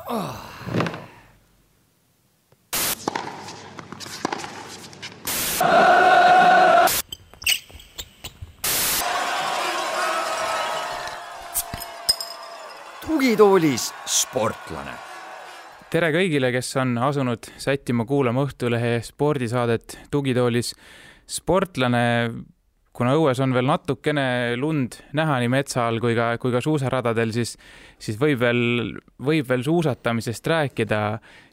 Tugitoolis sportlane. Tere kõigile, kes on asunud sättima kuulama Õhtulehe spordisaadet Tugitoolis sportlane. Kuna õues on veel natukene lund näha nii metsa all kui ka suusaradadel, siis võib veel suusatamisest rääkida.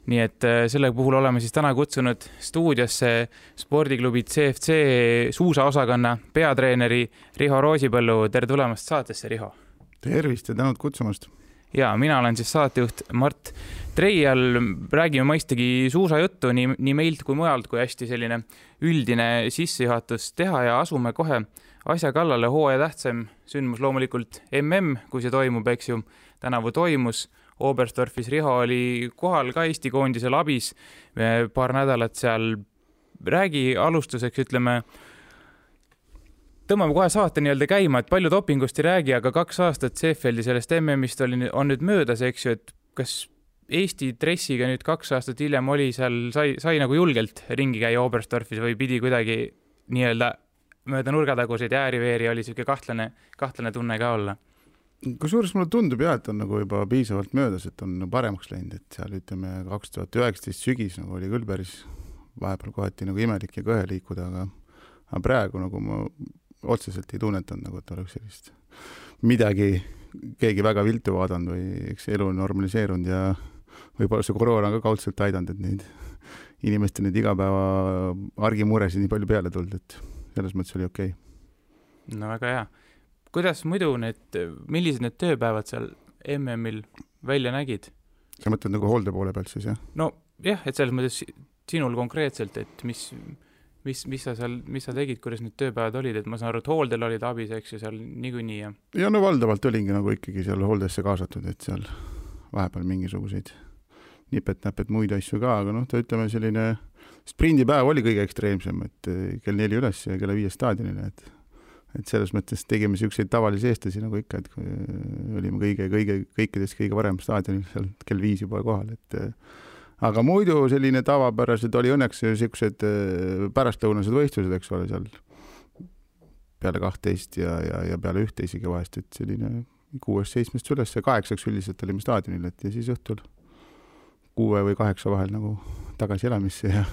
Nii et selle puhul oleme siis täna kutsunud stuudiosse spordiklubi CFC suusaosakonna peatreeneri Riho Roosipõllu. Tere tulemast saatesse, Riho. Tervist ja tänud kutsumast. Ja mina olen siis saatejuht Mart Treial. Räägime mõistagi suusajuttu nii meilt kui mujalt, kui hästi selline üldine sissejuhatus teha ja asume kohe asja kallale. Hooaja tähtsam sündmus loomulikult kui see toimub, eks ju. Tänavu toimus Oberstdorfis. Riho oli kohal ka Eesti koondisel abis paar nädalat seal. Räägi alustuseks, ütleme, tõmbame kohe saate nii-öelda käima, et palju dopingust ei räägi, aga 2 aastat Seefeldi sellest MM-ist on nüüd möödas, eks ju, et kas Eesti dressiga nüüd 2 aastat hiljem oli seal, sai nagu julgelt ringi käia Oberstdorfis või pidi kuidagi nii-öelda mööda nurgataguseid ja ääriveeri oli siuke kahtlane tunne ka olla? Kusjuures mulle tundub et on nagu juba piisavalt möödas, et on paremaks läinud, et seal ütleme 2019 sügis nagu oli küll päris vahepeal kohati nagu imelik ja kõhe liikuda, aga praegu nagu ma otseselt ei tunnetanud, nagu et oleks sellist midagi, keegi väga viltu vaadanud või eks elu on normaliseerunud ja võib-olla see koroona ka kaudselt aidanud, et neid inimeste neid igapäeva argimuresid nii palju peale tulnud, et selles mõttes oli okei. No väga hea. Kuidas muidu millised need tööpäevad seal MM-il välja nägid? Sa mõtled nagu hoolde poole pealt siis, jah? No jah, et selles mõttes sinul konkreetselt, et mis sa tegid, kuidas need tööpäevad olid, et ma saan aru, et hooldel olid abis, eks ju, seal niikuinii. Ja no valdavalt olingi nagu ikkagi seal hooldesse kaasatud, et seal vahepeal mingisuguseid nipet-näpet muid asju ka, aga ta ütleme selline sprindipäev oli kõige ekstreemsem, et kell 4 üles ja kella 5 staadionile, et selles mõttes tegime siukseid tavalisi eestlasi nagu ikka, et olime kõikidest kõige varem staadionil seal kell 5 juba kohal, et aga muidu selline tavapärased oli õnneks siuksed pärastlõunased võistlused, eks ole, seal peale 12 ja peale 1 isegi vahest, et selline 6-7 üles ja 8 üldiselt olime staadionil, et ja siis õhtul 6 või 8 vahel nagu tagasi elamisse ja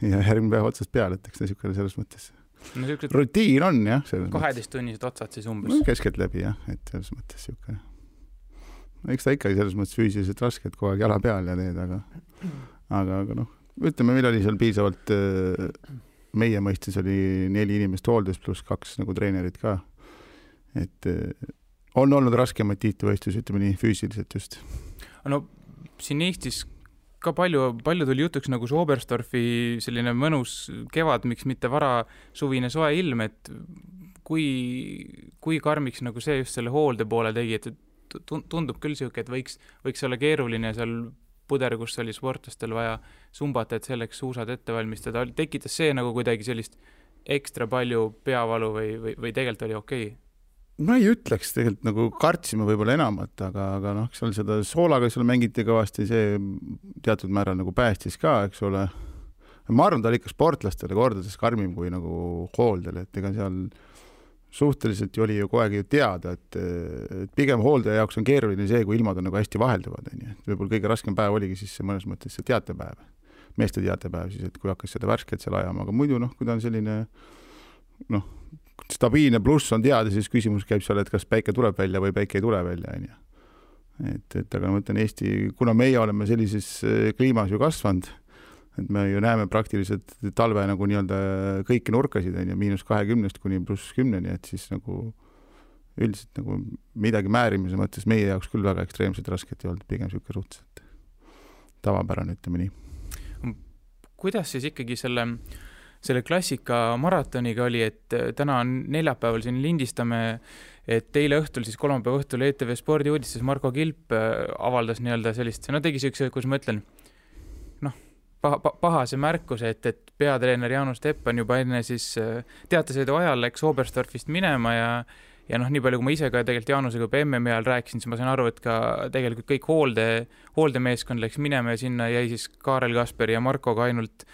järgmine päev otsast peale, et eks ta siukene selles mõttes. No, rutiin on, jah. 12-tunnised otsad siis umbes. No, keskelt läbi, jah, et selles mõttes siuke. Eks ta ikkagi selles mõttes füüsiliselt raske, et kogu aeg jala peal ja teed, aga ütleme, meil oli seal piisavalt, meie mõistes oli 4 inimest hooldes pluss 2 nagu treenerid ka, et on olnud raskemaid tiitlivõistlusi, ütleme nii füüsiliselt just. No siin Eestis ka palju tuli jutuks nagu see Oberstdorfi selline mõnus kevad, miks mitte vara suvine soe ilm, et kui karmiks nagu see just selle hoolde poole tegi, et tundub küll siuke, et võiks olla keeruline seal puder, kus oli sportlastel vaja sumbata, et selleks suusad ette valmistada. Tekitas see nagu kuidagi sellist ekstra palju peavalu või tegelikult oli okei? Ma ei ütleks, tegelikult nagu kartsime võib-olla enamat, aga seal seda soolaga seal mängiti kõvasti, see teatud määral nagu päästis ka, eks ole. Ma arvan, ta oli ikka sportlastele kordades karmim kui nagu hooldele, et ega seal suhteliselt oli ju kogu aeg ju teada, et pigem hooldaja jaoks on keeruline see, kui ilmad on nagu hästi vahelduvad. Võib-olla kõige raskem päev oligi siis see mõnes mõttes see teatepäev, meeste teatepäev siis, et kui hakkas seda värsket seal ajama, aga muidu kui ta on selline stabiilne pluss on teada, siis küsimus käib seal, et kas päike tuleb välja või päike ei tule välja. Aga ma mõtlen Eesti, kuna meie oleme sellises kliimas ju kasvanud, et me ju näeme praktiliselt talve nagu nii-öelda kõiki nurkasid, -20 kuni +10, et siis nagu üldiselt nagu midagi määrimise mõttes meie jaoks küll väga ekstreemselt rasket ei olnud, pigem siuke suhteliselt tavapärane, ütleme nii. Kuidas siis ikkagi selle klassika maratoniga oli, et täna on neljapäeval siin lindistame, et eile õhtul, siis kolmapäeva õhtul ETV spordiuudistes Marko Kilp avaldas nii-öelda sellist, tegi siukse, kus ma ütlen, pahase märkuse, et peatreener Jaanus Teppan juba enne siis teatesõidu ajal läks Oberstdorfist minema ja noh, nii palju, kui ma ise ka tegelikult Jaanusega MM-i ajal rääkisin, siis ma sain aru, et ka tegelikult kõik hooldemeeskond läks minema ja sinna jäi siis Kaarel Kasperi ja Markoga ainult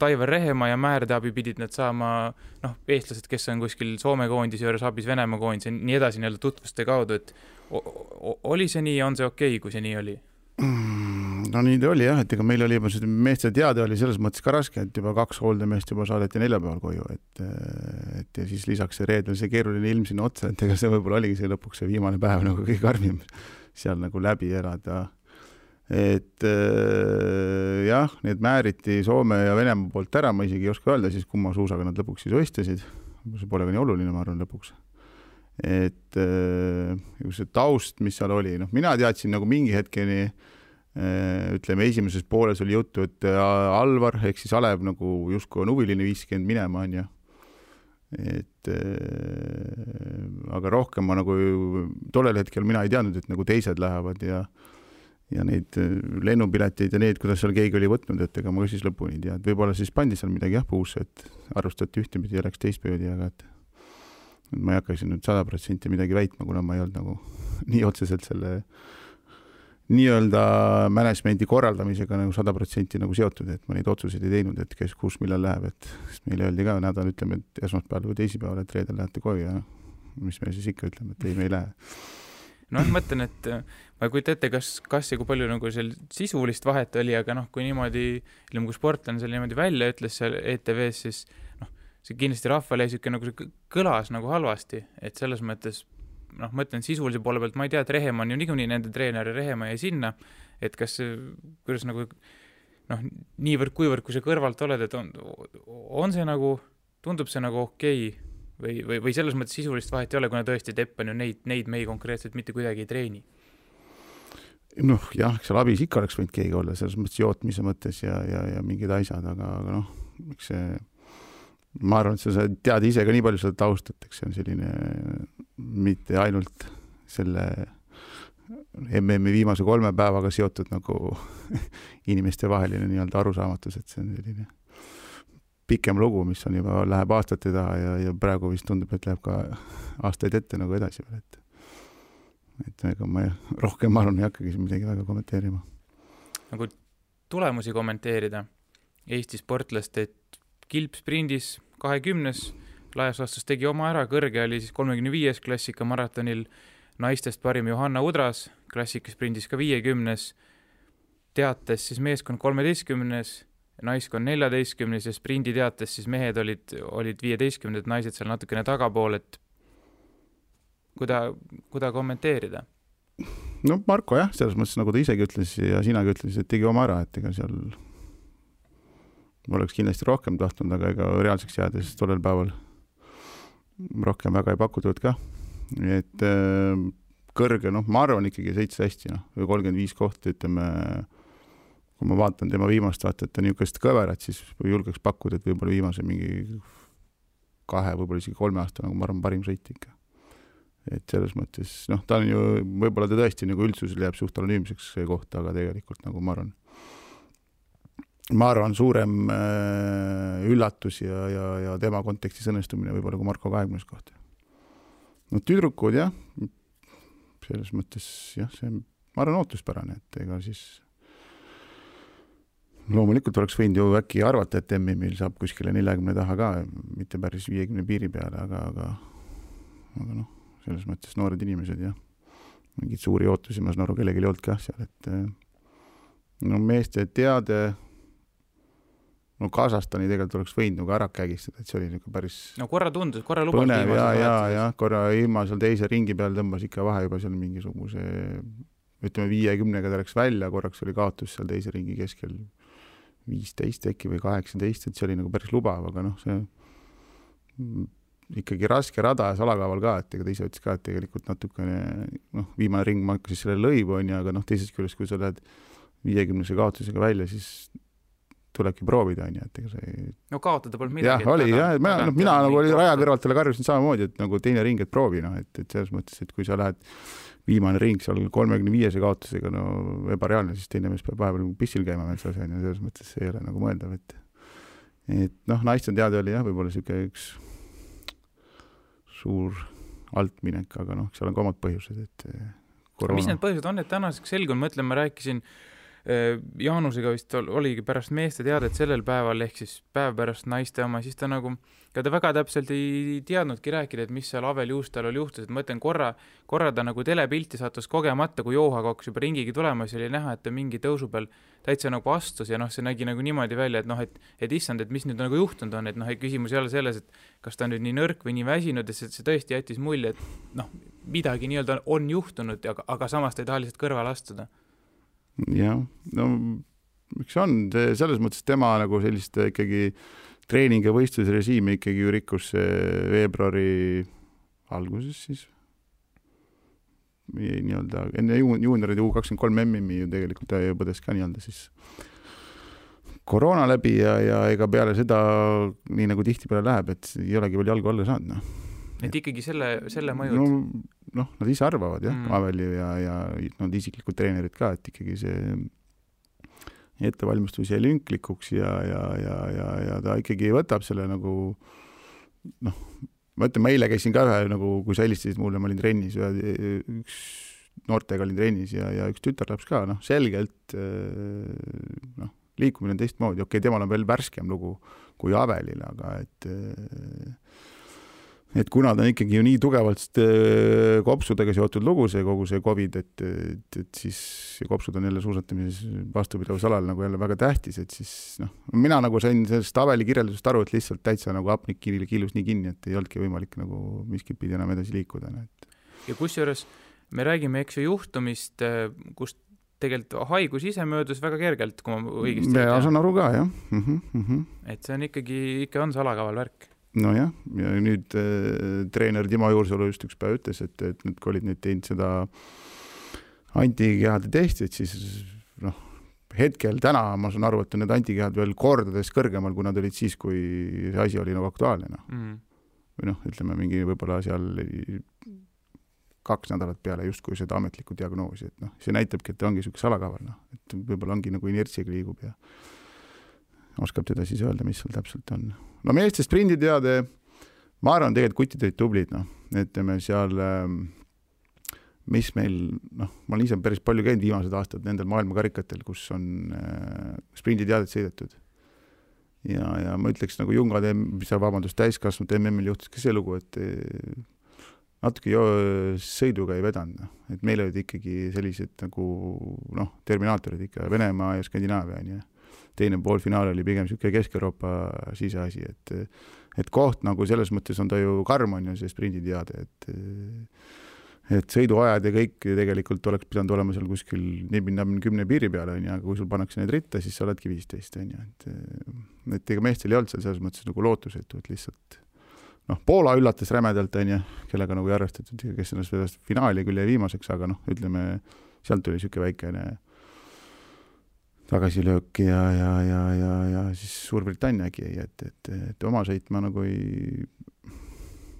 Aivar Rehemaa ja Määrde abi pidid nad saama, noh, eestlased, kes on kuskil Soome koondise juures abis Venemaa koondise, nii edasi nii-öelda tutvuste kaudu, et oli see nii, on see okei, kui see nii oli? No nii ta oli jah, et ega meil oli juba see meeste teade oli selles mõttes ka raske, et juba 2 hooldemeest juba saadeti neljapäeval koju, et ja siis lisaks see reedel see keeruline ilm sinna otsa, et ega see võib-olla oligi see lõpuks see viimane päev nagu kõige karmim seal nagu läbi elada. Et jah, need määriti Soome ja Venemaa poolt ära, ma isegi ei oska öelda siis, kumma suusaga nad lõpuks siis võistlesid. See pole ka nii oluline, ma arvan, lõpuks. Et see taust, mis seal oli, noh, mina teadsin nagu mingi hetkeni, ütleme, esimeses pooles oli juttu, et Alvar, ehk siis Alev nagu justkui on huviline 50 minema, on ja. Et aga rohkem ma nagu tollel hetkel mina ei teadnud, et nagu teised lähevad ja neid lennupileteid ja need, kuidas seal keegi oli võtnud, et ega ma siis lõpuni ei tea. Võib-olla siis pandi seal midagi puusse, et arvustati ühtepidi ja läks teistpidi, aga et ma ei hakkaksin nüüd 100% midagi väitma, kuna ma ei olnud nagu nii otseselt selle nii-öelda managemendi korraldamisega nagu 100% nagu seotud, et ma neid otsuseid ei teinud, et kes kus millal läheb, et meile öeldi ka nädal, ütleme, et esmaspäeval või teisipäeval, et reedel lähete koju ja mis me siis ikka ütleme, et ei, me ei lähe. No ma mõtlen, et ma ei kujuta ette, kas ja kui palju nagu seal sisulist vahet oli, aga noh, kui niimoodi, kui sportlane seal niimoodi välja ütles seal ETV-s, siis noh, see kindlasti rahvale jäi nagu see kõlas nagu halvasti, et selles mõttes noh, mõtlen sisulise poole pealt, ma ei tea, et Rehemaa on ju niikuinii nende treener ja Rehemaa jäi sinna, et kas, kuidas nagu noh, niivõrd kuivõrd, kui sa kõrvalt oled, et on see nagu, tundub see nagu okei või selles mõttes sisulist vahet ei ole, kuna tõesti Tepp on ju neid mehi konkreetselt mitte kuidagi ei treeni? Noh, jah, seal abis ikka oleks võinud keegi olla, selles mõttes jootmise mõttes ja mingid asjad, aga noh, eks see ma arvan, et sa tead ise ka nii palju seda taustat, eks see on selline mitte ainult selle MM-i viimase 3 päevaga seotud nagu inimeste vaheline nii-öelda arusaamatus, et see on selline pikem lugu, mis on juba läheb aastate taha ja praegu vist tundub, et läheb ka aastaid ette nagu edasi veel, et ega ma rohkem ma arvan, ei hakkagi midagi väga kommenteerima. Nagu tulemusi kommenteerida Eesti sportlast, et kilpsprindis 20. laias laastus tegi oma ära, kõrge oli siis 35. klassika maratonil, naistest parim Johanna Udras, klassikaspringis ka 50. Teates siis meeskond 13. naiskond 14. ja sprindi teates siis mehed olid 15. naised seal natukene tagapool, et kuda kommenteerida? No Marko jah, selles mõttes nagu ta isegi ütles ja sinagi ütles, et tegi oma ära, et ega seal oleks kindlasti rohkem tahtnud, aga ega reaalseks jäädes tollel päeval rohkem väga ei pakutud ka. Et kõrge, noh, ma arvan ikkagi sõitsa hästi, noh, või 35 kohta, ütleme, kui ma vaatan tema viimast vaata, et ta niisugust kõverat, siis julgeks pakkuda, et võib-olla viimase mingi 2, võib-olla isegi 3 aasta, nagu ma arvan, parim sõit ikka. Et selles mõttes, noh, ta on ju, võib-olla ta tõesti nagu üldsusel jääb suht anonüümseks see kohta, aga tegelikult nagu ma arvan suurem üllatus ja tema kontekstis õnnestumine võib-olla kui Marko 20. kohta. No tüdrukud jah, selles mõttes jah, see ma arvan ootuspärane, et ega siis loomulikult oleks võinud ju äkki arvata, et MM-il saab kuskile 40 taha ka, mitte päris 50 piiri peale, aga noh, selles mõttes noored inimesed jah, mingid suuri ootusi ma saan aru kellegi ei olnud ka seal, et no meeste teade no Kasahstani tegelikult oleks võinud nagu ära kägistada, et see oli nagu päris no korra lubas põnev ja korra ilma seal teise ringi peal tõmbas ikka vahe juba seal mingisuguse ütleme 50-ga ta läks välja, korraks oli kaotus seal teise ringi keskel 15 äkki või 18, et see oli nagu päris lubav, aga noh, see ikkagi raske rada ja salakaaval ka, et ega ta ise ütles ka, et tegelikult natukene noh, viimane ring ma hakkasin selle lõivu on ja, aga noh, teisest küljest, kui sa lähed 50-se kaotusega välja, siis tulebki proovida, on ju, et ega see no kaotada polnud midagi. Jah, oli, jah, mina nagu oli raja kõrvalt talle karjusin samamoodi, et nagu teine ring, et proovi, noh, et selles mõttes, et kui sa lähed viimane ring seal 35 kaotusega, no ebareaalne, siis teine mees peab vahepeal pissil käima metsas, ja selles mõttes see ei ole nagu mõeldav, et noh, naiste teada oli jah, võib-olla siuke üks suur alt minek, aga noh, seal on ka omad põhjused, et koroona. Mis need põhjused on, et tänaseks selgun, mõtlen, ma rääkisin Jaanusega vist oligi pärast meeste teadet sellel päeval, ehk siis päev pärast naiste oma, siis ta nagu, ta väga täpselt ei teadnudki rääkida, et mis seal Avel Juustal oli juhtus, et ma mõtlen korra ta nagu telepilti sattus kogemata, kui Joohaga hakkas juba ringigi tulema, siis oli näha, et ta mingi tõusu peal täitsa nagu astus ja noh, see nägi nagu niimoodi välja, et noh, et issand, et mis nüüd nagu juhtunud on, et noh, küsimus ei ole selles, et kas ta on nüüd nii nõrk või nii väsinud, et see tõesti jättis mulje, et noh, midagi nii-öelda on juhtunud, aga samas ta ei taha lihtsalt kõrvale astuda. Jah, no miks on, selles mõttes tema nagu sellist ikkagi treening- ja võistlusrežiimi ikkagi ju rikkus veebruari alguses siis nii-öelda enne juuniorid U23 MM-i ju tegelikult ta põdes ka nii-öelda siis koroona läbi ja ega peale seda nii nagu tihtipeale läheb, et ei olegi veel jalgu alla saanud, noh. Et ikkagi selle mõjud? Noh, nad ise arvavad, jah, Aveli ja nad isiklikud treenerid ka, et ikkagi see ettevalmistus jäi lünklikuks ja ta ikkagi võtab selle nagu, noh, ma ütlen, ma eile käisin ka ühe, nagu, kui sa helistasid mulle, ma olin trennis, üks noortega olin trennis ja üks tütarlaps ka, noh, selgelt, noh, liikumine on teistmoodi, okei, temal on veel värskem lugu kui Avelil, aga et kuna ta on ikkagi ju nii tugevalt kopsudega seotud lugu, see kogu see COVID, et siis kopsud on jälle suusatamises vastupidavus-alal nagu jälle väga tähtis, et siis noh, mina nagu sain sellest Aveli kirjeldusest aru, et lihtsalt täitsa nagu hapnik kiilus nii kinni, et ei olnudki võimalik nagu miskit pidi enam edasi liikuda. Ja kusjuures me räägime, eks ju, juhtumist, kus tegelikult haigus ise möödus väga kergelt, kui ma õigesti ja saan aru ka, jah. Et see on ikka on salakaval värk. Nojah, ja nüüd treener Timo Juursalu just üks päev ütles, et nüüd kui olid nüüd teinud seda antikehade testit, siis noh, hetkel täna ma saan aru, et on need antikehad veel kordades kõrgemal, kui nad olid siis, kui see asi oli nagu aktuaalne. Või noh, ütleme mingi võib-olla seal 2 nädalat peale justkui seda ametlikku diagnoosi, et noh, see näitabki, et ongi selline salakaval, noh, et võib-olla ongi nagu inertsiga liigub ja oskab teda siis öelda, mis seal täpselt on. No meeste sprinditeade, ma arvan, tegelikult kutid olid tublid, noh, ütleme seal, mis meil, noh, ma olen ise päris palju käinud viimased aastad nendel maailmakarikatel, kus on sprinditeadet sõidetud. Ja ma ütleks nagu jungade, täiskasvanud MM-il juhtus ka see lugu, et natuke sõiduga ei vedanud, et meil olid ikkagi sellised nagu, noh, terminaatorid ikka Venemaa ja Skandinaavia, ja teine poolfinaal oli pigem selline Kesk-Euroopa siseasi, et koht nagu selles mõttes on ta ju karm on ju see sprinditeade, et sõiduajad ja kõik tegelikult oleks pidanud olema seal kuskil 10 piiri peale, aga kui sul pannakse need ritta, siis sa oledki 15, et ega meestel ei olnud seal selles mõttes nagu lootusetu, et lihtsalt noh, Poola üllatas rämedalt, kellega nagu ei arvestatud, kes ennast finaali küll jäi viimaseks, aga noh, ütleme, sealt tuli selline väikene tagasilöök ja siis Suurbritanniagi jäi, et oma sõitma nagu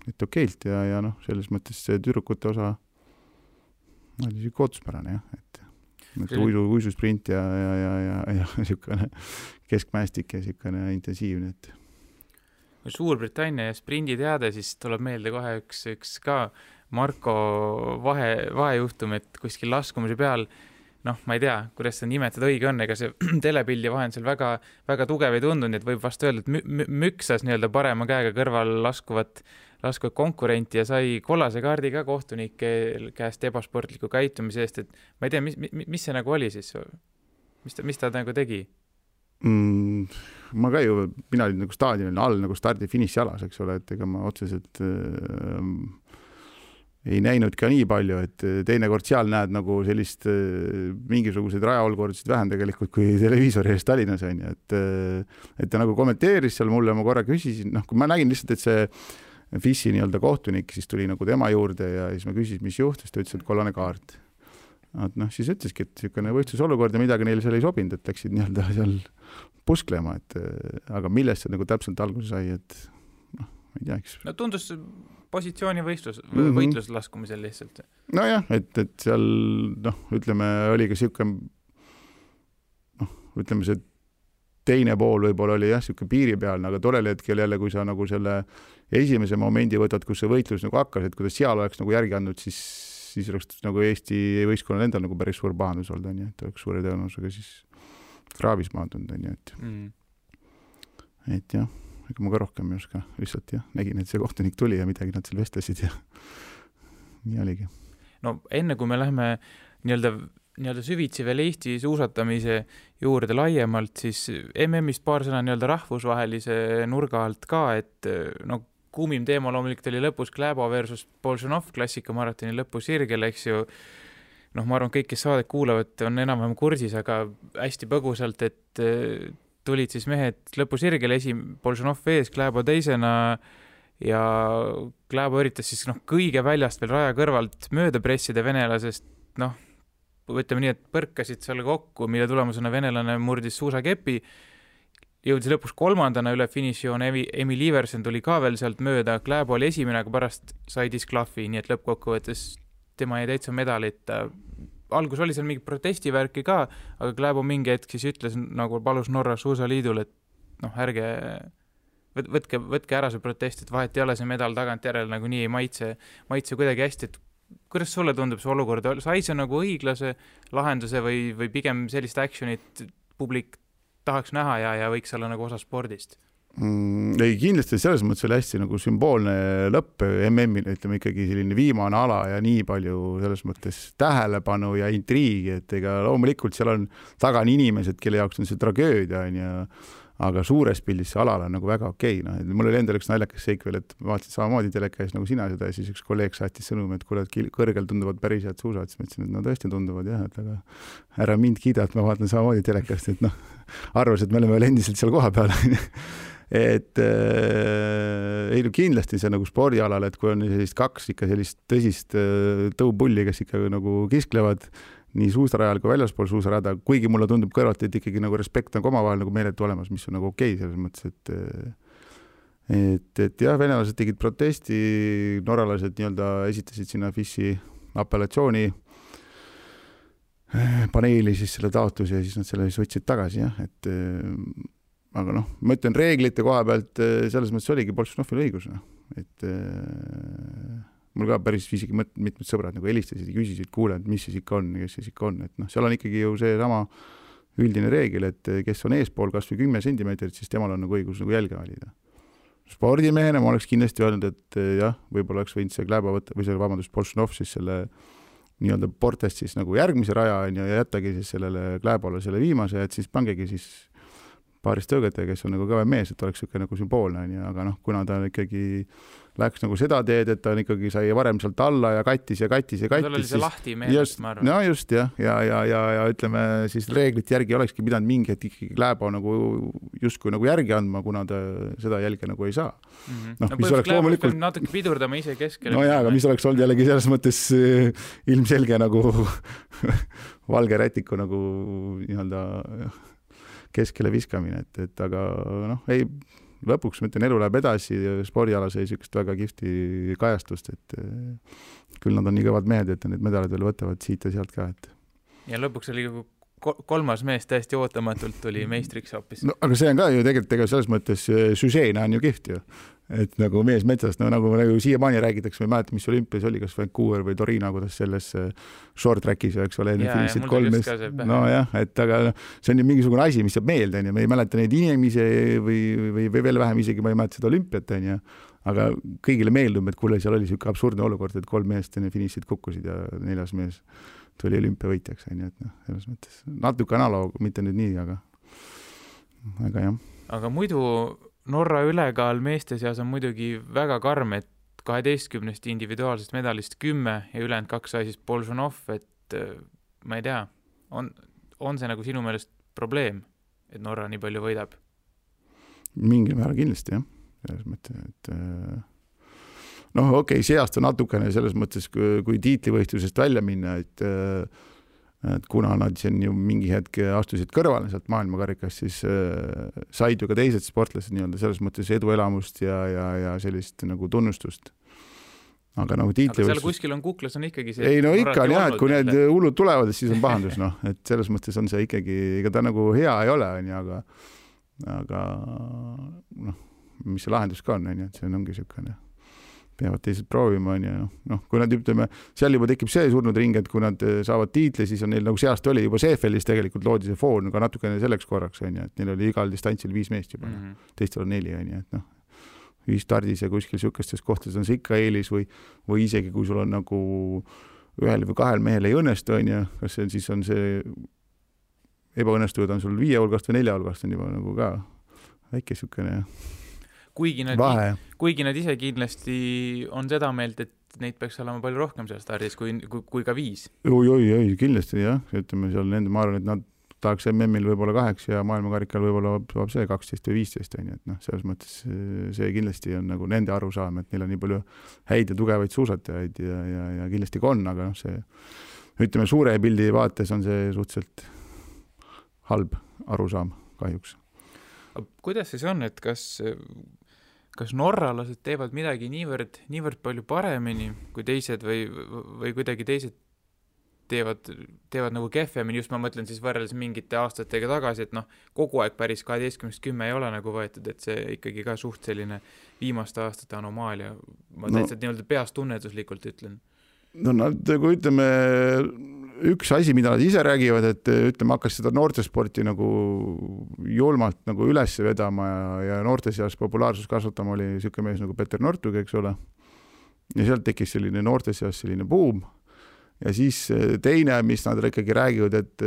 et okeilt ja noh, selles mõttes see tüdrukute osa oli siuke ootuspärane, jah, et uisusprint ja siukene keskmäestik ja siukene intensiivne, et Suurbritannia ja sprinditeade, siis tuleb meelde kohe üks ka Marko vahejuhtum, et kuskil laskumise peal noh, ma ei tea, kuidas seda nimetada õige on, ega see telepildi vahend seal väga, väga tugev ei tundunud, et võib vast öelda, et müksas nii-öelda parema käega kõrval laskuvat konkurenti ja sai kollase kaardi ka kohtunike käest ebasportliku käitumise eest, et ma ei tea, mis see nagu oli siis? Mis ta nagu tegi? Ma ka ju, mina olin nagu staadionil all nagu stardi-finiši alas, eks ole, et ega ma otseselt ei näinud ka nii palju, et teinekord seal näed nagu sellist mingisuguseid rajaolkordasid vähem tegelikult kui televiisori eest Tallinnas on ju, et ta nagu kommenteeris seal mulle, ma korra küsisin, noh, kui ma nägin lihtsalt, et see FIS-i nii-öelda kohtunik siis tuli nagu tema juurde ja siis ma küsisin, mis juhtus, ta ütles, et kollane kaart. Et noh, siis ütleski, et selline võistlusolukord ja midagi neil seal ei sobinud, et läksid nii-öelda seal pusklema, et aga millest see nagu täpselt alguse sai, et noh, ma ei tea, eks. No tundus positsiooni võitlus laskumisel lihtsalt. Nojah, et seal, noh, ütleme, oli ka selline, noh, ütleme see teine pool võib-olla oli jah, siuke piiri peal, aga tollel hetkel jälle, kui sa nagu selle esimese momendi võtad, kus see võitlus nagu hakkas, et kuidas seal oleks nagu järgi andnud, siis oleks nagu Eesti võistkonnal endal nagu päris suur pahandus olnud, on ju, et oleks suure tõenäosusega siis kraavis maandunud, on ju, et jah, ega ma ka rohkem ei oska, lihtsalt jah, nägin, et see kohtunik tuli ja midagi nad seal vestlesid ja nii oligi. No enne kui me lähme nii-öelda süvitsi veel Eesti suusatamise juurde laiemalt, siis MM-ist paar sõna nii-öelda rahvusvahelise nurga alt ka, et no kuumim teema loomulikult oli lõpus Kläbo versus Bolšunov klassikamaratoni lõpusirgel, eks ju. Noh, ma arvan, kõik, kes saadet kuulavad, on enam-vähem kursis, aga hästi põgusalt, et tulid siis mehed lõpusirgel, Bolšunov ees, Kläbo teisena ja Kläbo üritas siis kõige väljast veel raja kõrvalt mööda pressida venelasest, ütleme nii, et põrkasid seal kokku, mille tulemusena venelane murdis suusakepi, jõudis lõpus 3. üle finišijoon, Emil Iversen tuli ka veel sealt mööda, Kläbo oli esimene, aga pärast sai disklahvi, nii et lõppkokkuvõttes tema jäi täitsa medalit. Algus oli seal mingi protestivärki ka, aga Kläbo mingi hetk siis ütles, nagu palus Norra suusaliidul, et ärge võtke ära see protest, et vahet ei ole see medal tagant järele nagu nii ei maitse kuidagi hästi, et kuidas sulle tundub see olukord? Sai see nagu õiglase lahenduse või pigem sellist actionit publik tahaks näha ja võiks olla nagu osa spordist? Ei, kindlasti selles mõttes oli hästi nagu sümboolne lõpp MM-il, ütleme ikkagi selline viimane ala ja nii palju selles mõttes tähelepanu ja intriigi, et ega loomulikult seal on taga inimesed, kelle jaoks on see tragöödia, aga suures pildis see alal on nagu väga okei. Mul oli endal üks naljakas seik veel, et ma vaatasin samamoodi telekäis nagu sina seda ja siis üks kolleeg saatis sõnum, et kuule, kõrgel tunduvad päris head suusad, siis ma ütlesin, et tõesti tunduvad jah, et aga ära mind kiida, et ma vaatan samamoodi telekast, et arvas, et me oleme veel endiselt seal koha peal. Et ei kindlasti see nagu spordialal, et kui on sellist kaks ikka sellist tõsist tõupulli, kes ikka nagu kisklevad nii suusarajal kui väljaspool suusarada, kuigi mulle tundub kõrvalt, et ikkagi nagu respekt on omavahel nagu meeletu olemas, mis on nagu okei selles mõttes, et jah, venelased tegid protesti, norralased nii-öelda esitasid sinna FIS-i apellatsiooni paneeli siis selle taotluse ja siis nad selle siis võtsid tagasi, jah, et aga ma ütlen reeglite koha pealt selles mõttes oligi Bolšunovil õigus, et mul ka päris isegi mitmed sõbrad nagu helistasid ja küsisid, kuule, et mis siis ikka on, kes siis ikka on, et seal on ikkagi ju see sama üldine reegel, et kes on eespool kas või 10 sentimeetrit, siis temal on nagu õigus nagu jälge valida. Spordimehena ma oleks kindlasti öelnud, et jah, võib-olla oleks võinud see Kläbo võtta, või see Bolšunov siis selle nii-öelda portest siis nagu järgmise raja ja jättagi siis sellele Kläbole selle viimase, et siis pangegi siis paarist tõõgete, kes on nagu kõve mees, et oleks siuke nagu sümboolne, aga kuna ta ikkagi läks nagu seda teed, et ta ikkagi sai varem sealt alla ja kattis. Tal oli see lahti meelest, ma arvan. No just, jah. Ja ütleme, siis reeglit järgi olekski pidanud mingi, et ikkagi Kläbo nagu justkui nagu järgi andma, kuna ta seda jälge nagu ei saa. Mis oleks loomulikult natuke pidurdama ise keskele. No jaa, aga mis oleks olnud jällegi selles mõttes ilmselge nagu valge rätiku nagu nii-öelda keskele viskamine, et aga ei, lõpuks ma ütlen, elu läheb edasi ja spordialas ei sükest väga kihvti kajastust, et küll nad on nii kõvad mehed, et need medalid veel võtavad siit ja sealt ka. Ja lõpuks oli kolmas mees täiesti ootamatult tuli meistriks hoopis. No, aga see on ka ju tegelikult selles mõttes süžeena on ju kihvt ju. Et nagu mees metsast, nagu siiamaani räägitakse, ma ei mäleta, mis olümpias oli, kas Vancouver või Torino, kuidas selles short trackis, eks ole, finišid 3 meest. No jah, et aga see on ju mingisugune asi, mis jääb meelde, me ei mäleta neid inimesi või veel vähem isegi, ma ei mäleta seda olümpiat, aga kõigile meeldub, et kuule, seal oli siuke absurdne olukord, et 3 meest finišid kukkusid ja 4. mees tuli olümpiavõitjaks, et selles mõttes natuke analoog, mitte nüüd nii, aga jah. Aga muidu Norra ülekaal meeste seas on muidugi väga karm, et 12 individuaalsest medalist 10 ja ülejäänud 2 sai siis Bolšunov, et ma ei tea, on see nagu sinu meelest probleem, et Norra nii palju võidab? Mingil määral kindlasti, jah. Selles mõttes, et okei, see aasta natukene selles mõttes, kui tiitlivõistlusest välja minna, et kuna nad siin ju mingi hetk astusid kõrvale sealt maailmakarikast, siis said ju ka teised sportlased nii-öelda selles mõttes eduelamust ja sellist nagu tunnustust. Aga seal kuskil on kuklas on ikkagi see... Ei, ikka on jah, et kui need hullud tulevad, siis on pahandus, et selles mõttes on see ikkagi, ega ta nagu hea ei ole, aga aga noh, mis see lahendus ka on, et see ongi niisugune, peavad teised proovima, kui nad ütleme, seal juba tekib see surnud ring, et kui nad saavad tiitli, siis on neil nagu seast oli juba CFL-is tegelikult loodi see foon ka natukene selleks korraks, et neil oli igal distantsil 5 meest juba, teistel on 4, et ühistardis ja kuskil niisugustes kohtades on see ikka eelis või isegi kui sul on nagu ühel või 2 mehel ei õnnestu, kas see siis on see ebaõnnestuvad on sul 5 hulgast või 4 hulgast on juba nagu ka väike niisugune kuigi nad ise kindlasti on seda meelt, et neid peaks olema palju rohkem seal stardis kui ka 5. Oi, kindlasti jah, ütleme seal nende, ma arvan, et nad tahaks MM-il võib-olla 8 ja maailmakarikal võib-olla saab see 12 või 15, et selles mõttes see kindlasti on nagu nende arusaam, et neil on nii palju häid ja tugevaid suusatajaid ja kindlasti ka on, aga see, ütleme, suure pildi vaates on see suhteliselt halb arusaam kahjuks. Kuidas siis on, et kas norralased teevad midagi niivõrd palju paremini kui teised või kuidagi teised teevad nagu kehvemini, just ma mõtlen siis võrreldes mingite aastatega tagasi, et kogu aeg päris 12-10 ei ole nagu võetud, et see ikkagi ka suht selline viimaste aastate anomaalia. Ma täitsa nii-öelda peast tunnetuslikult ütlen. Nad, kui ütleme, üks asi, mida nad ise räägivad, et ütleme, hakkas seda noortesporti nagu julmalt nagu üles vedama ja noorte seas populaarsus kasvatama oli niisugune mees nagu Peter Nortug, eks ole. Ja sealt tekkis selline noorte seas selline buum. Ja siis teine, mis nad ikkagi räägivad, et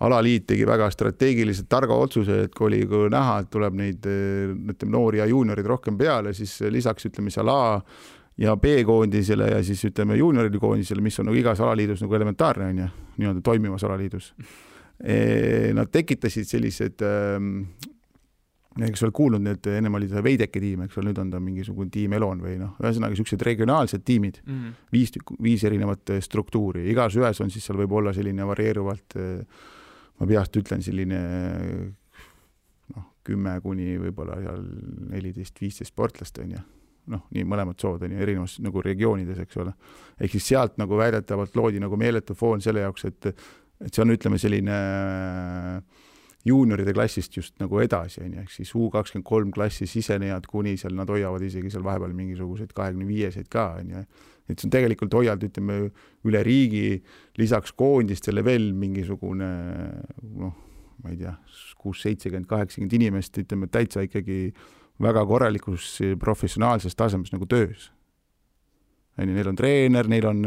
alaliit tegi väga strateegiliselt targa otsuse, et kui oli näha, et tuleb neid noori ja juuniorid rohkem peale, siis lisaks ütleme seal A ja B-koondisele ja siis ütleme juunioride koondisele, mis on nagu igas alaliidus nagu elementaarne, nii-öelda toimivas alaliidus. Nad tekitasid sellised, eks ole kuulnud, need ennem oli see Veideke tiim, eks ole, nüüd on ta mingisugune tiim Elon või ühesõnaga sellised regionaalsed tiimid, 5 erinevat struktuuri. Igas ühes on siis seal võib olla selline varieeruvalt, ma peast ütlen selline 10 kuni võib-olla 14-15 sportlast on nii mõlemad sood on erinevas nagu regioonides, eks ole. Ehk siis sealt nagu väidetavalt loodi nagu meeletu foon selle jaoks, et see on, ütleme, selline juunioride klassist just nagu edasi, ehk siis U23 klassi sisenejad kuni seal, nad hoiavad isegi seal vahepeal mingisuguseid 25-seid ka, et see on tegelikult hoiald, ütleme, üle riigi, lisaks koondistele veel mingisugune, ma ei tea, 6-70-80 inimest, ütleme, täitsa ikkagi väga korralikus professionaalses tasemes nagu töös. Neil on treener, neil on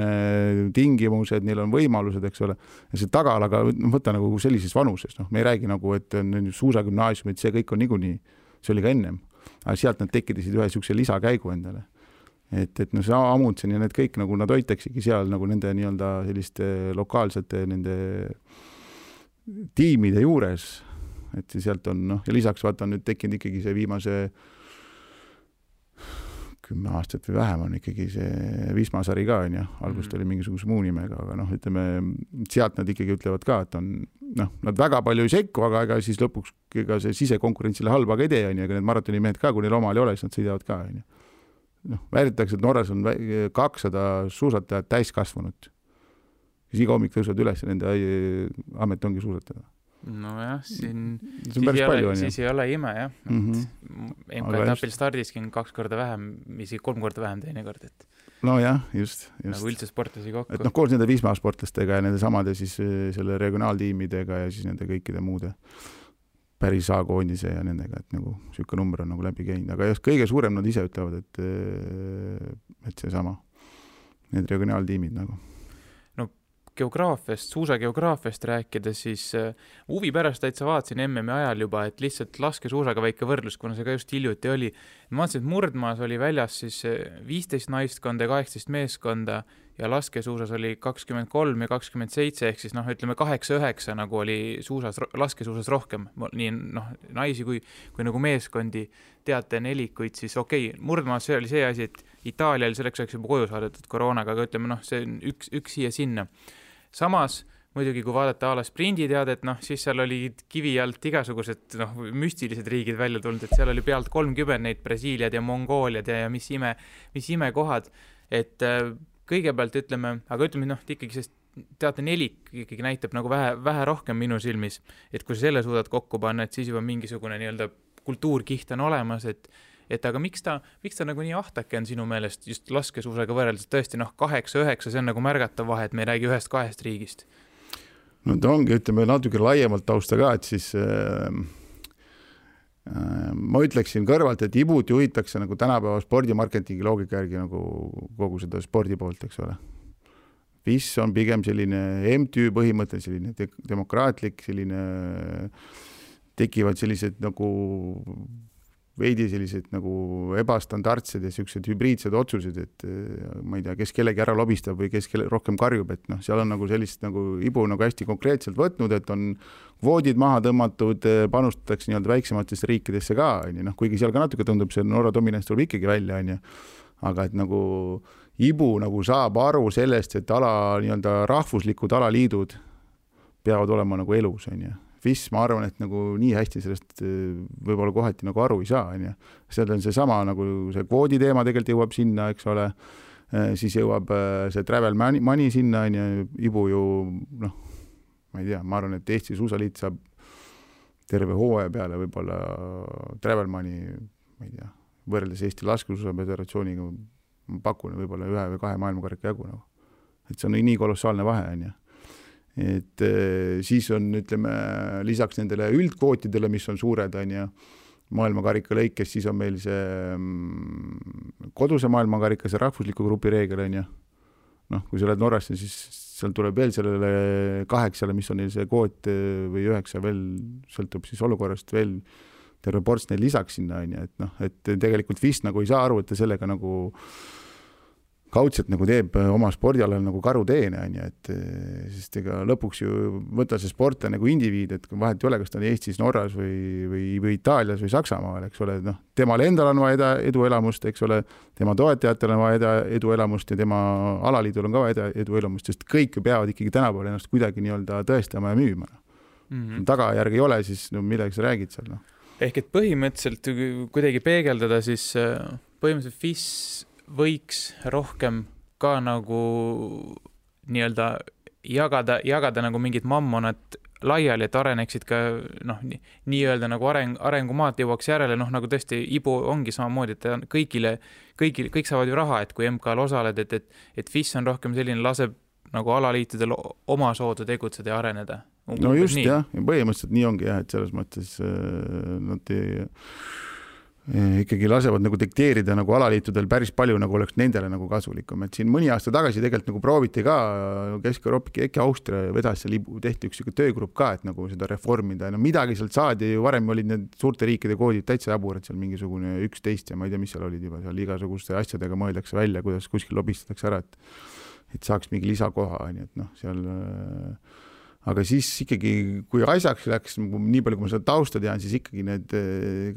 tingimused, neil on võimalused, eks ole. Ja see tagalaga võtta nagu sellises vanuses. Me ei räägi nagu, et suusagümnaasiumid, see kõik on niikuinii, see oli ka ennem. Aga sealt nad tekkisid ühe niisuguse lisakäigu endale. Et see Amundsen ja need kõik, nagu nad hoitaksigi seal nagu nende nii-öelda selliste lokaalsete nende tiimide juures. Et sealt on, ja lisaks vaata on nüüd tekkinud ikkagi see viimase 10 aastat või vähem on ikkagi see Wismar-sari ka, algust oli mingisuguse muu nimega, aga ütleme, sealt nad ikkagi ütlevad ka, et on, nad väga palju ei sekku, aga ega siis lõpuks ega see sisekonkurentsile halba ka ei tee, aga need maratonimehed ka, kui neil omal ei ole, siis nad sõidavad ka. Väidetakse, et Norras on 200 suusatajat täiskasvanud. Siis iga hommik tõusvad üles ja nende amet ongi suusatada. Nojah, siis ei ole ime, jah. MK-etapil stardiski on 2 korda vähem, isegi 3 korda vähem teine kord. No jah, just. Nagu üldse sportlasi kokku. Et koos nende Wismar sportlastega ja nende samade siis selle regionaaltiimidega ja siis nende kõikide muude päris A-koondise ja nendega, et nagu siuke number on nagu läbi käinud. Aga just kõige suurem nad ise ütlevad, et see sama, need regionaaltiimid nagu. Suusageograafiast rääkida, siis huvi pärast täitsa vaatasin MM-i ajal juba, et lihtsalt laskesuusaga väike võrdlus, kuna see ka just hiljuti oli. Ma vaatasin, et Murdmaas oli väljas siis 15 naistkonda ja 18 meeskonda ja laskesuusas oli 23 ja 27, ehk siis ütleme 8-9 nagu oli laskesuusas rohkem. Nii naisi kui nagu meeskondi teate nelikuid, siis Murdmaas see oli see asi, et Itaalial selleks oleks juba koju saadetud koroonaga, aga ütleme, see on üks siia sinna. Samas, muidugi kui vaadata ala sprinditeadet, siis seal oli kivi alt igasugused müstilised riigid välja tulnud, et seal oli pealt 30 neid Brasiiliad ja Mongooliad ja mis ime kohad, et kõigepealt ütleme, ikkagi see teatenelik ikkagi näitab nagu vähe rohkem minu silmis, et kui sa selle suudad kokku panna, et siis juba mingisugune nii-öelda kultuurkiht on olemas, et aga miks ta nagu nii ahtake on sinu meelest just laskesuusaga võrreldes, tõesti 8-9, see on nagu märgatav vahe, et me ei räägi 1-2 riigist. No ta ongi, ütleme natuke laiemalt tausta ka, et siis ma ütleksin kõrvalt, et ibut juhitakse nagu tänapäeva spordimarketingi loogika järgi nagu kogu seda spordi poolt, eks ole. FIS on pigem selline MTÜ põhimõte, selline demokraatlik, selline tekivad sellised nagu veidi sellised nagu ebastandardsed ja sellised hübriidsed otsused, et ma ei tea, kes kellegi ära lobistab või kes rohkem karjub, et seal on nagu sellist nagu ibu nagu hästi konkreetselt võtnud, et on kvoodid maha tõmmatud, panustatakse nii-öelda väiksematesse riikidesse ka, kuigi seal ka natuke tundub, see Norra dominants tuleb ikkagi välja, aga et nagu ibu nagu saab aru sellest, et nii-öelda rahvuslikud alaliidud peavad olema nagu elus, FIS, ma arvan, et nagu nii hästi sellest võib-olla kohati nagu aru ei saa, seal on see sama nagu see kvoodi teema tegelikult jõuab sinna, eks ole, siis jõuab see travel money sinna, ibu ju, ma ei tea, ma arvan, et Eesti suusaliit saab terve hooaja peale võib-olla travel money, ma ei tea, võrreldes Eesti laskesuusaföderatsiooniga ma pakun võib-olla 1 või 2 maailmakarika jagu, et see on nii kolossaalne vahe, et siis on, ütleme, lisaks nendele üldkvootidele, mis on suured, maailmakarika lõikes, siis on meil see koduse maailmakarika, see rahvusliku grupi reegel, kui sa oled Norrasse, siis seal tuleb veel sellele 8, mis on neil see kvoot või 9 veel, sõltub siis olukorrast veel terve ports neil lisaks sinna, et tegelikult FIS nagu ei saa aru, et ta sellega nagu kaudselt nagu teeb oma spordialal nagu karuteene, et sest ega lõpuks ju võtta see sportla nagu indiviid, et vahet ei ole, kas ta on Eestis, Norras või Itaalias või Saksamaal, eks ole, temal endal on vaja eduelamust, eks ole, tema toetajatel on vaja eduelamust ja tema alaliidul on ka vaja eduelamust, sest kõik peavad ikkagi tänapäeval ennast kuidagi nii-öelda tõestama ja müüma. Tagajärg ei ole, siis millega sa räägid seal? Ehk et põhimõtteliselt kuidagi peegeldada, siis põhimõtteliselt FIS võiks rohkem ka nagu nii-öelda jagada nagu mingid mammonad laiali, et areneksid ka nii-öelda nagu arengumaad jõuaks järele, nagu tõesti ibu ongi samamoodi, et kõik saavad ju raha, et kui MK-l osaled, et FIS on rohkem selline, laseb nagu alaliitudel oma soodu tegutseda ja areneda. No just nii. Jah, põhimõtteliselt nii ongi jah, et selles mõttes nad ikkagi lasevad nagu dikteerida nagu alaliitudel päris palju nagu oleks nendele nagu kasulikum, et siin mõni aasta tagasi tegelikult nagu prooviti ka Kesk-Euroopa, äkki Austria vedas seal tehti üks töögrupp ka, et nagu seda reformida, midagi sealt saadi, varem olid need suurte riikide koodid täitsa jaburad, seal mingisugune 11 ja ma ei tea, mis seal olid juba, seal igasuguste asjadega mõeldakse välja, kuidas kuskil lobistatakse ära, et saaks mingi lisakoha, et seal aga siis ikkagi, kui asjaks läks, nii palju, kui ma seda tausta tean, siis ikkagi need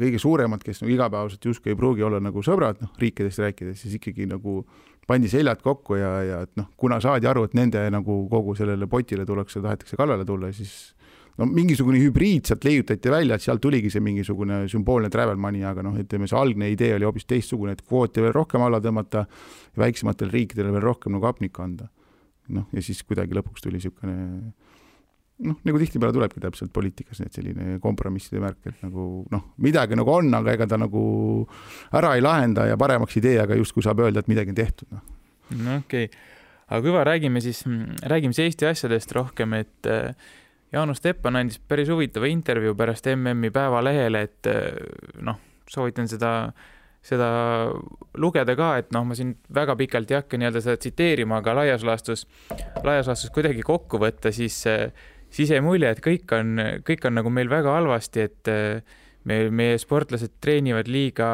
kõige suuremad, kes igapäevaselt justkui ei pruugi olla nagu sõbrad, riikidest rääkides, siis ikkagi nagu pandi seljad kokku ja kuna saadi aru, et nende nagu kogu sellele potile tullakse, tahetakse kallale tulla, siis mingisugune hübriid sealt leiutati välja, et sealt tuligi see mingisugune sümboolne travel money, aga ütleme, see algne idee oli hoopis teistsugune, et kvooti veel rohkem alla tõmmata ja väiksematele riikidele veel rohkem nagu apnikku anda. Ja siis kuidagi lõpuks tuli niisugune nagu tihtipeale tulebki täpselt poliitikas need selline kompromisside märk, et nagu midagi nagu on, aga ega ta nagu ära ei lahenda ja paremaks idee, aga just kui saab öelda, et midagi on tehtud. Okei. Aga kui räägime Eesti asjadest rohkem, et Jaanus Teppan andis päris huvitava intervjuu pärast MM-i Päevalehele, et soovitan seda lugeda ka, et ma siin väga pikalt ei hakka nii-öelda seda tsiteerima, aga laias laastus kuidagi kokku võtta, siis jäi mulje, et kõik on nagu meil väga halvasti, et meie sportlased treenivad liiga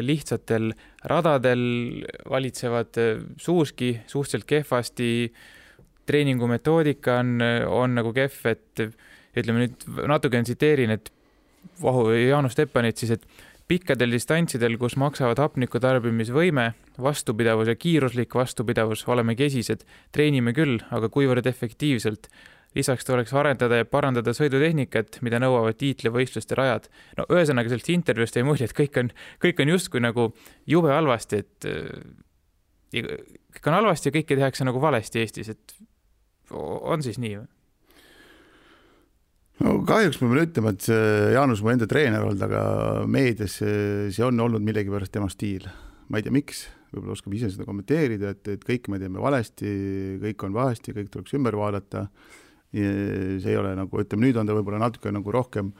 lihtsatel radadel, valitsevad suuski suhteliselt kehvasti, treeningumetoodika on nagu kehv, et ütleme nüüd natuke tsiteerin, et Jaanus Teppanit siis, et pikkadel distantsidel, kus maksavad hapniku tarbimisvõime, vastupidavus ja kiiruslik vastupidavus, oleme kesised, treenime küll, aga kuivõrd efektiivselt. Lisaks tuleks arendada ja parandada sõidutehnikat, mida nõuavad tiitlivõistluste rajad. Ühesõnaga sellest intervjuust ei mulje, et kõik on justkui nagu jube halvasti, et kõik on halvasti ja kõike tehakse nagu valesti Eestis, et on siis nii või? No kahjuks ma pean ütlema, et Jaanus mu enda treener olnud, aga meedias see on olnud millegipärast tema stiil. Ma ei tea, miks, võib-olla oskab ise seda kommenteerida, et kõik me teeme valesti, kõik on vahesti, kõik tuleks ümber vaadata. Ja see ei ole nagu, ütleme, nüüd on ta võib-olla natuke nagu rohkem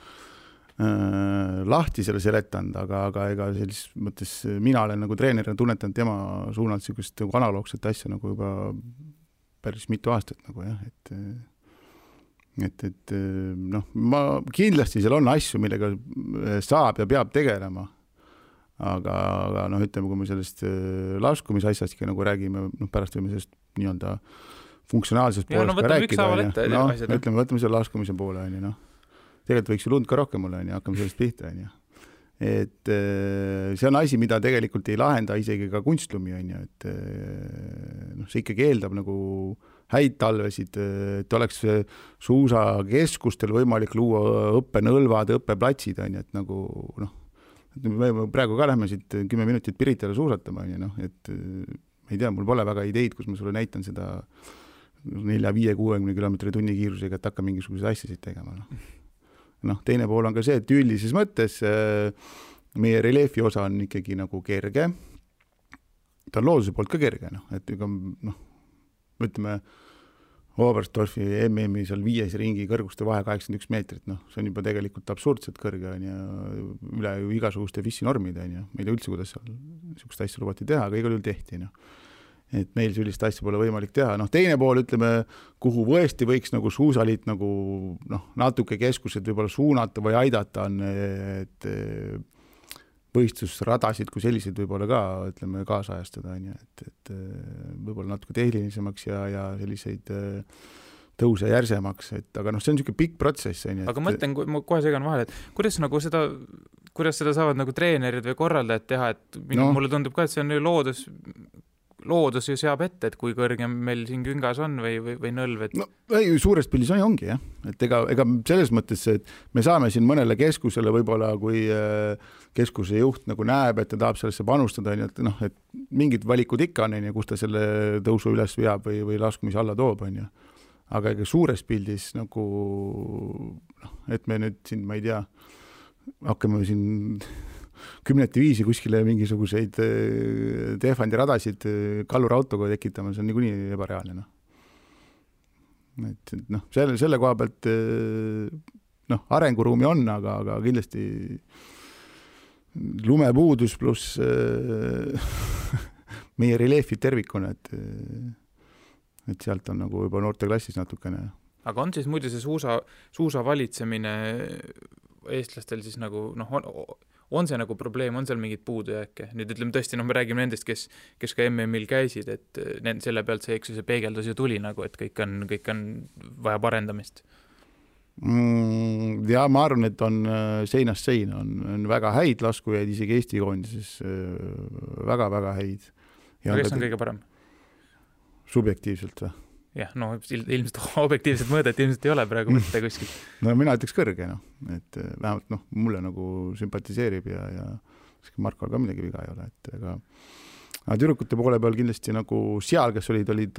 lahti selle seletanud, aga ega sellises mõttes mina olen nagu treenerina tunnetanud tema suunalt sellist nagu analoogset asja nagu juba päris mitu aastat nagu jah, et noh, ma kindlasti seal on asju, millega saab ja peab tegelema, aga noh, ütleme, kui me sellest laskumisasjastki nagu räägime, noh, pärast võime sellest nii-öelda funktsionaalsest poolest ka rääkida, ütleme, võtame selle laskumise poole, noh. Tegelikult võiks ju lund ka rohkem olla, hakkame sellest pihta. Et see on asi, mida tegelikult ei lahenda isegi ka kunstlumi, et noh, see ikkagi eeldab nagu häid talvesid, et oleks suusakeskustel võimalik luua õppenõlvad, õppeplatsid, et nagu noh, me praegu ka lähme siit 10 minutit Piritale suusatama, noh, et ma ei tea, mul pole väga ideid, kus ma sulle näitan seda 4-5-60 kilomeetri tunni kiirusega, et hakka mingisuguseid asjasid tegema, noh, teine pool on ka see, et üldises mõttes meie reljeefi osa on ikkagi nagu kerge. Ta on looduse poolt ka kerge, et noh, ütleme, Oberstdorfi MM-i seal 5 ringi kõrguste vahe 81 meetrit, noh, see on juba tegelikult absurdselt kõrge ja üle ju igasuguste FIS-normide, ma ei tea üldse, kuidas seal niisugust asja lubati teha, aga igal juhul tehti, noh. Et meil sellist asja pole võimalik teha. Noh, teine pool, ütleme, kuhu võesti võiks nagu suusaliit nagu, noh, natuke keskused võib-olla suunata või aidata on, et võistlusradasid kui sellised võib-olla ka, ütleme, kaasajastada, et võib-olla natuke tehnilisemaks ja selliseid tõuse järsemaks, et aga noh, see on niisugune pikk protsess. Aga mõtlen, ma kohe segan vahele, et kuidas seda saavad nagu treenerid või korraldajad teha, et mulle tundub ka, et see on loodus ju seab ette, et kui kõrge meil siin küngas on või nõlv, et... No, ei, suures pildis ongi, jah. Et ega selles mõttes, et me saame siin mõnele keskusele võib-olla, kui keskuse juht nagu näeb, et ta tahab sellesse panustada, et noh, et mingid valikud ikka on, kus ta selle tõusu üles veab või laskumise alla toob, on ju. Aga ega suures pildis nagu, et me nüüd siin, ma ei tea, hakkame siin 10-5 kuskile mingisuguseid Tehvandi radasid kallurautoga tekitama, see on niikuinii ebareaalne. Et noh, selle koha pealt noh, arenguruumi on, aga kindlasti lumepuudus pluss meie reljeefid tervikuna, et sealt on nagu juba noorteklassis natukene. Aga on siis muidu see suusa valitsemine eestlastel siis nagu, noh, on see nagu probleem, on seal mingid puudujääke? Nüüd ütleme tõesti, me räägime nendest, kes ka MM-il käisid, et selle pealt see peegeldus ju tuli nagu, et kõik on vaja parendamist. Ja ma arvan, et on seinast seina, on väga häid laskujaid, isegi Eesti koondises väga-väga häid. Ja kes on kõige parem? Subjektiivselt või? Jah, no ilmselt objektiivselt mõõdet ilmselt ei ole praegu mõtte kuskil. No mina ütleks kõrge, et vähemalt mulle nagu sümpatiseerib ja Markol ka midagi viga ei ole, et aga tüdrukute poole peal kindlasti nagu seal, kes olid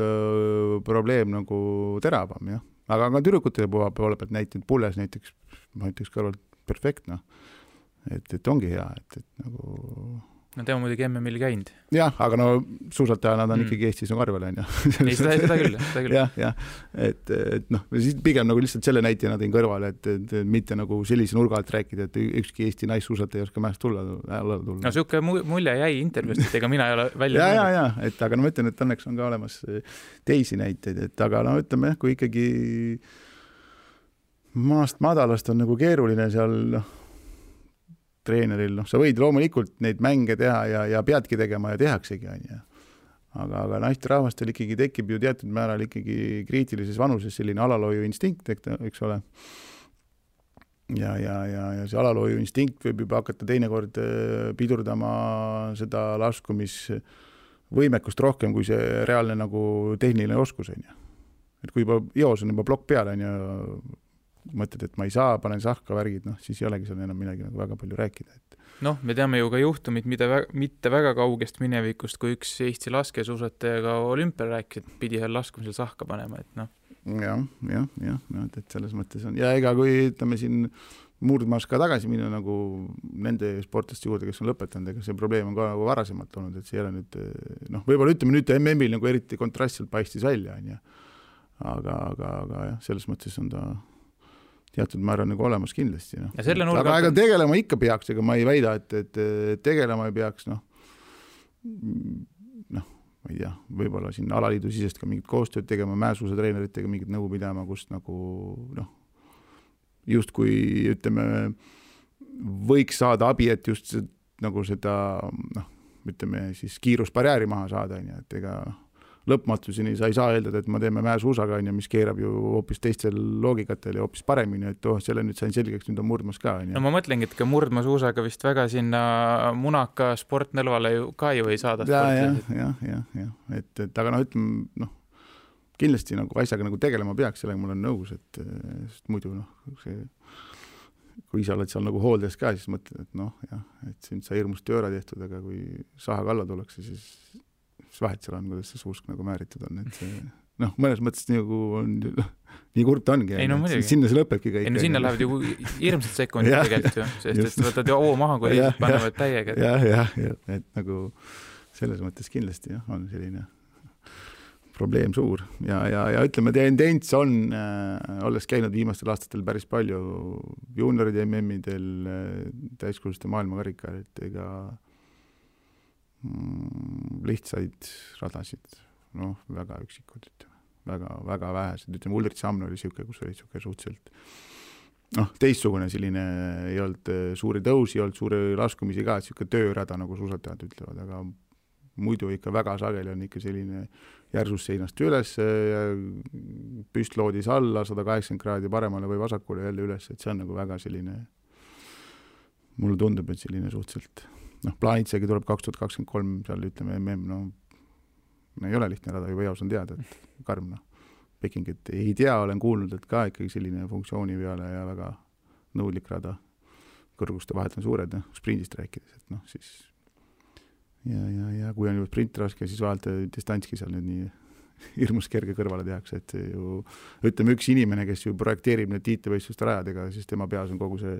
probleem nagu teravam, jah. Aga tüdrukute poole pealt näitanud Pulles näiteks, ma ütleks kõrvalt perfektne, et ongi hea, et nagu... No tema muidugi MM-il käinud. Jah, aga no suusataja nad on ikkagi Eestis on karvel, on ju. Ei, seda küll. Jah, et noh, pigem nagu lihtsalt selle näitena tõin kõrvale, et mitte nagu sellise nurga alt rääkida, et ükski Eesti naissuusataja ei oska mäest tulla. No siuke mulje jäi intervjuust, et ega mina ei ole välja. Ja, et aga no ma ütlen, et õnneks on ka olemas teisi näiteid, et aga no ütleme, kui ikkagi maast madalast on nagu keeruline seal treeneril, sa võid loomulikult neid mänge teha ja peadki tegema ja tehaksegi, on ju. Aga naisterahvastel ikkagi tekib ju teatud määral ikkagi kriitilises vanuses selline alalooju instinkt, eks ole. Ja see alalooju instinkt võib juba hakata teinekord pidurdama seda laskumisvõimekust rohkem, kui see reaalne nagu tehniline oskus, on ju. Et kui juba joos on juba plokk peale, on ju, mõtled, et ma ei saa, panen sahka värgid, siis ei olegi seal enam midagi nagu väga palju rääkida. Noh, me teame ju ka juhtumid, mitte väga kaugest minevikust, kui üks Eesti laskesuusatajaga olümpial rääkis, et pidi seal laskumisel sahka panema, et noh. et selles mõttes on. Ja ega kui ütleme siin murdmaas ka tagasi minna nagu nende sportlaste juurde, kes on lõpetanud, ega see probleem on ka nagu varasemalt olnud, et see ei ole nüüd, võib-olla ütleme nüüd MM-il nagu eriti kontrastselt paistis välja, aga jah, selles mõttes on ta teatud määral nagu olemas kindlasti. Aga ega tegelema ikka peaks, ega ma ei väida, et tegelema ei peaks, ma ei tea, võib-olla siin alaliidu sisest ka mingit koostööd tegema, mäesuusa treeneritega mingit nõu pidama, kust nagu just kui ütleme, võiks saada abi, et just nagu seda ütleme siis kiirusbarjääri maha saada, et ega lõpmatuseni sa ei saa eeldada, et ma teeme mäesuusaga, mis keerab ju hoopis teistel loogikatel ja hoopis paremini, et selle nüüd sain selgeks, nüüd on murdmas ka. No ma mõtlengi, et ka murdmasuusaga vist väga sinna munaka sportnõlvale ka ju ei saada. Ja. Et aga ütleme, kindlasti nagu asjaga nagu tegelema peaks, sellega mul on nõus, et muidu kui sa oled seal nagu hooldes ka, siis mõtled, et et siin sai hirmust tööra tehtud, aga kui saha kalla tullakse, siis vahet seal on, kuidas see suusk nagu määritud on, et see mõnes mõttes nagu on, nii kurt ongi, sinna see lõpebki kõik. Sinna lähevad ju hirmsad sekundid tegelikult ju, sest et võtad ju oo maha, kui lihtsalt panevad täiega. Jah, et nagu selles mõttes kindlasti on selline probleem suur ja ütleme, tendents on, olles käinud viimastel aastatel päris palju juunioride MM-idel, täiskuluste maailmakarika, et ega lihtsaid radasid, väga üksikud, väga vähesed, ütleme, Ulrich Samno oli siuke, kus oli siuke suhteliselt teistsugune selline, ei olnud suuri tõusi, ei olnud suuri laskumisi ka, et siuke töörada, nagu suusatajad ütlevad, aga muidu ikka väga sageli on ikka selline järsust seinast üles, püstloodis alla, 180 kraadi paremale või vasakule jälle üles, et see on nagu väga selline, mulle tundub, et selline suhteliselt, plaanitsegi tuleb 2023, seal ütleme MM, ei ole lihtne rada, juba eos on teada, et karm, Pekingit ei tea, olen kuulnud, et ka ikkagi selline funktsiooni peale ja väga nõudlik rada, kõrguste vahet on suured, sprindist rääkides, et siis ja kui on juba sprint raske, siis vahelt distantski seal nüüd nii hirmus kerge kõrvale tehakse, et ju ütleme üks inimene, kes ju projekteerib need tiitlivõistluste rajadega, siis tema peas on kogu see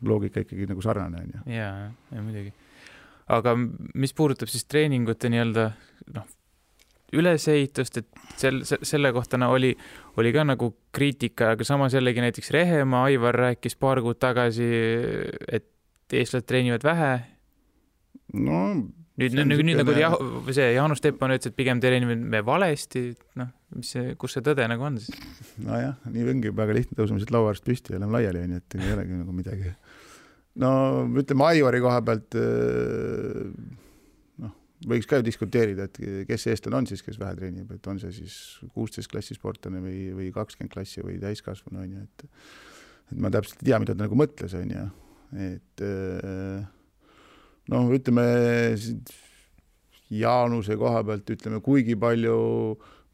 loogika ikkagi nagu sarnane. Ja muidugi. Aga mis puudutab siis treeningute nii-öelda ülesehitust, et selle kohta oli ka nagu kriitika, aga samas jällegi näiteks Rehemaa, Aivar rääkis paar kuud tagasi, et eestlased treenivad vähe. Nüüd nagu see Jaanus Teppan ütles, et pigem treenime valesti, kus see tõde nagu on siis? Nojah, nii ongi väga lihtne tõuseme siit lauaarst püsti ja oleme laiali, et ei olegi nagu midagi. Ütleme Aivari koha pealt võiks ka ju diskuteerida, et kes eestlane on siis, kes vähe treenib, et on see siis 16 klassi sportlane või 20 klassi või täiskasvanu, et ma täpselt ei tea, mida ta nagu mõtles, et ütleme Jaanuse koha pealt, ütleme, kuigi palju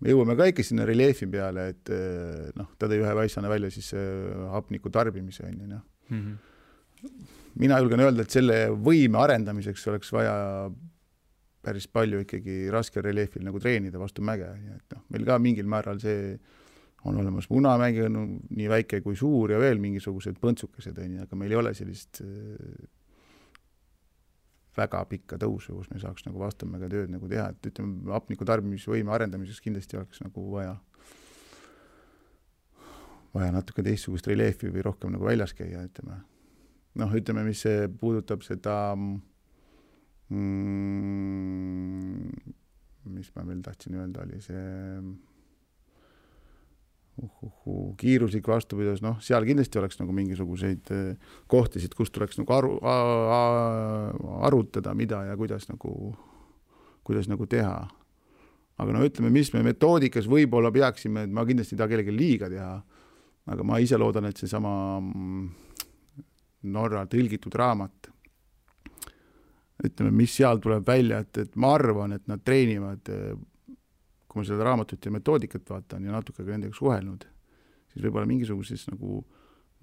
me jõuame ka ikka sinna reljeefi peale, et ta tõi ühe väissana välja siis hapniku tarbimise. Mina julgen öelda, et selle võime arendamiseks oleks vaja päris palju ikkagi raske reljeefil nagu treenida vastu mäge. Et meil ka mingil määral see on olemas Munamägi, nii väike kui suur ja veel mingisugused põntsukesed, aga meil ei ole sellist väga pikka tõusu, kus me saaks nagu vastamäega tööd nagu teha, et ütleme, hapniku tarbimisvõime arendamiseks kindlasti oleks nagu vaja natuke teistsugust reljeefi või rohkem nagu väljas käia, ütleme. Ütleme, mis see puudutab seda mis ma veel tahtsin öelda, oli see kiiruslik vastupidus, seal kindlasti oleks nagu mingisuguseid kohtisid, kus tuleks nagu arutada, mida ja kuidas nagu teha. Aga ütleme, mis me metoodikas võib-olla peaksime, et ma kindlasti ei taha kellelegi liiga teha, aga ma ise loodan, et see sama Norra tõlgitud raamat, ütleme, mis seal tuleb välja, et ma arvan, et nad treenivad, kui ma seda raamatut ja metoodikat vaatan ja natuke ka nendega suhelnud, siis võib-olla mingisuguses nagu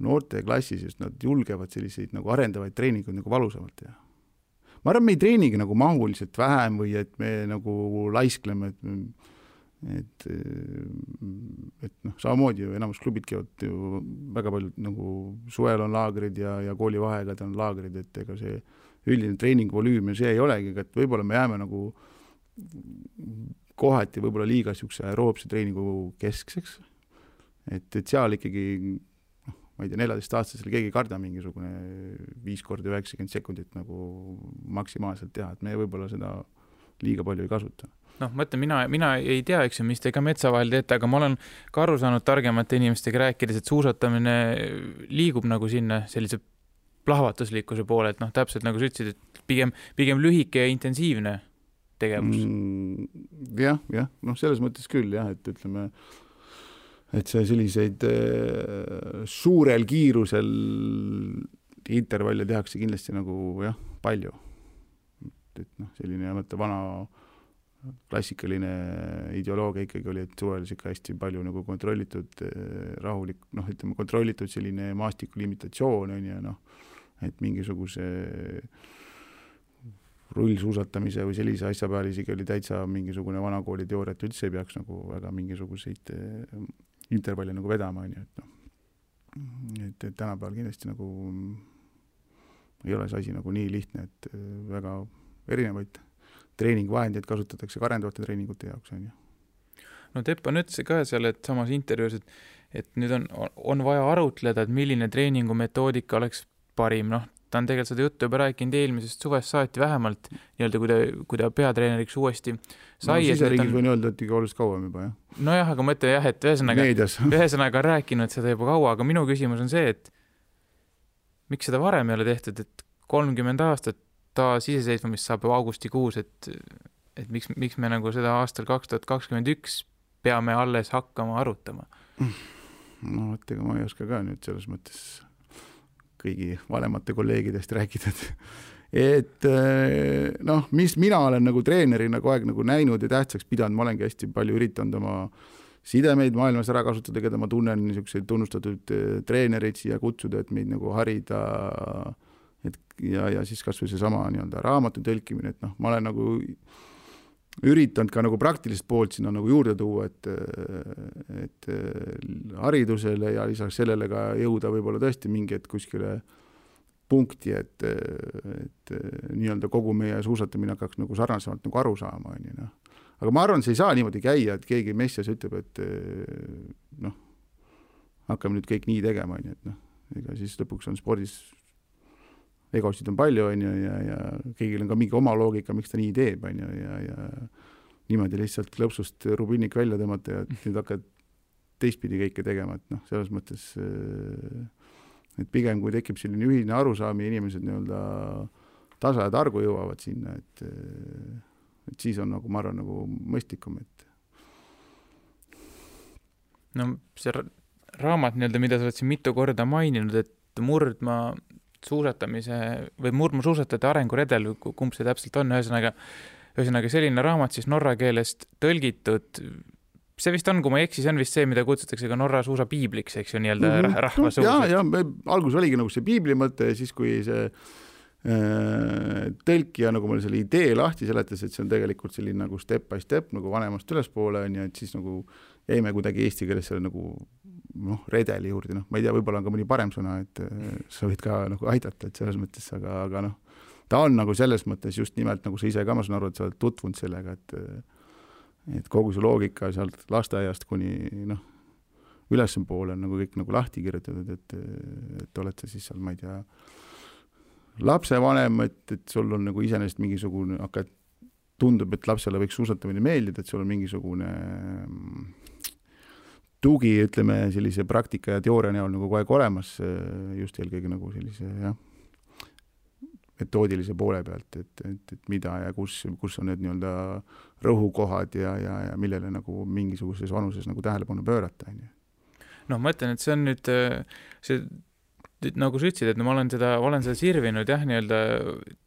noorte klassis, just nad julgevad selliseid nagu arendavaid treeninguid nagu valusamalt teha. Ma arvan, me ei treenigi nagu mahuliselt vähem või et me nagu laiskleme, et noh, samamoodi ju enamus klubid käivad ju väga paljud nagu suvel on laagrid ja koolivaheajad on laagrid, et ega see üldine treeningvolüüm ja see ei olegi, et võib-olla me jääme nagu kohati võib-olla liiga siukse aeroobse treeningu keskseks, et seal ikkagi ma ei tea, 14-aastasel keegi ei karda mingisugune 5 korda 90 sekundit nagu maksimaalselt teha, et me võib-olla seda liiga palju ei kasuta. Noh, ma ütlen, mina ei tea, eks ju, mis te ka metsa vahel teete, aga ma olen ka aru saanud targemate inimestega rääkides, et suusatamine liigub nagu sinna sellise plahvatuslikkuse poole, et noh, täpselt nagu sa ütlesid, et pigem lühike ja intensiivne tegevus. Jah, noh, selles mõttes küll jah, et ütleme, et see selliseid suurel kiirusel intervalle tehakse kindlasti nagu jah, palju. Et noh, selline mõtte vana klassikaline ideoloogia ikkagi oli, et suvel ikka hästi palju nagu kontrollitud rahulik, noh, ütleme kontrollitud selline maastiku limitatsioon on ja noh, et mingisuguse rullsuusatamise või sellise asja peal isegi oli täitsa mingisugune vanakooli teooria, et üldse ei peaks nagu väga mingisuguseid intervalli nagu vedama, et noh, et tänapäeval kindlasti nagu ei ole see asi nagu nii lihtne, et väga erinevaid treeningvahendeid kasutatakse ka arendavate treeningute jaoks, on ju. No Teppan ütles ka seal, et samas intervjuus, et nüüd on vaja arutleda, et milline treeningumetoodika oleks parim, noh, ta on tegelikult seda juttu juba rääkinud eelmisest suvest saati vähemalt, nii-öelda kui ta peatreeneriks uuesti sai. No siseriigis võin öelda, et ikka oluliselt kauem juba, jah. Nojah, aga ma ütlen jah, et ühesõnaga on rääkinud seda juba kaua, aga minu küsimus on see, et miks seda varem ei ole tehtud, et 30 aastat taas iseseisvamist saab augustikuus, et miks me nagu seda aastal 2021 peame alles hakkama arutama? No, ega ma ei oska ka nüüd selles mõttes kõigi vanemate kolleegidest rääkida, et noh, mis mina olen nagu treenerina kogu aeg nagu näinud ja tähtsaks pidanud, ma olengi hästi palju üritanud oma sidemeid maailmas ära kasutada, keda ma tunnen niisuguseid tunnustatud treenereid siia kutsuda, et meid nagu harida, et ja siis kas või see sama nii-öelda raamatu tõlkimine, et noh, ma olen nagu üritanud ka nagu praktilist poolt sinna nagu juurde tuua, et haridusele ja lisaks sellele ka jõuda võib-olla tõesti mingi et kuskile punkti, et nii-öelda kogu meie suusatamine hakkaks nagu sarnasemalt nagu aru saama, on ju, noh. Aga ma arvan, see ei saa niimoodi käia, et keegi messias ütleb, et noh, hakkame nüüd kõik nii tegema, on ju, et noh, ega siis lõpuks on spordis egosid on palju, on ju, ja kõigil on ka mingi oma loogika, miks ta nii teeb, on ju, ja niimoodi lihtsalt lõpsust rubinnik välja tõmmata ja nüüd hakkad teistpidi kõike tegema, et noh, selles mõttes, et pigem kui tekib selline ühine arusaami, inimesed nii-öelda tasa ja targu jõuavad sinna, et siis on nagu, ma arvan, nagu mõistlikum, et no see raamat nii-öelda, mida sa oled siin mitu korda maininud, et murdma suusatajate arenguredel, kumb see täpselt on, ühesõnaga selline raamat siis norra keelest tõlgitud, see vist on, kui ma ei eksi, see on vist see, mida kutsutakse ka Norra suusa piibliks, eks ju, nii-öelda rahvasuus. Ja algus oligi nagu see piibli mõte ja siis, kui see tõlkija nagu mulle selle idee lahti seletas, et see on tegelikult selline nagu step by step nagu vanemast ülespoole on ja et siis nagu jäime kuidagi eesti keeles selle nagu noh, redeli juurde, noh, ma ei tea, võib-olla on ka mõni parem sõna, et sa võid ka nagu aidata, et selles mõttes, aga noh, ta on nagu selles mõttes just nimelt nagu sa ise ka, ma saan aru, et sa oled tutvunud sellega, et kogu see loogika sealt lasteaiast kuni noh, ülespoole on nagu kõik nagu lahti kirjutatud, et oled sa siis seal, ma ei tea, lapsevanem, et sul on nagu iseenesest mingisugune, aga tundub, et lapsele võiks suusatamine meeldida, et sul on mingisugune tugi, ütleme, sellise praktika ja teooria näol nagu kogu aeg olemas, just eelkõige nagu sellise, jah, metoodilise poole pealt, et mida ja kus on need nii-öelda rõhukohad ja millele nagu mingisuguses vanuses nagu tähelepanu pöörata. No ma ütlen, et see on nüüd see nagu sa ütlesid, et no ma olen seda sirvinud jah, nii-öelda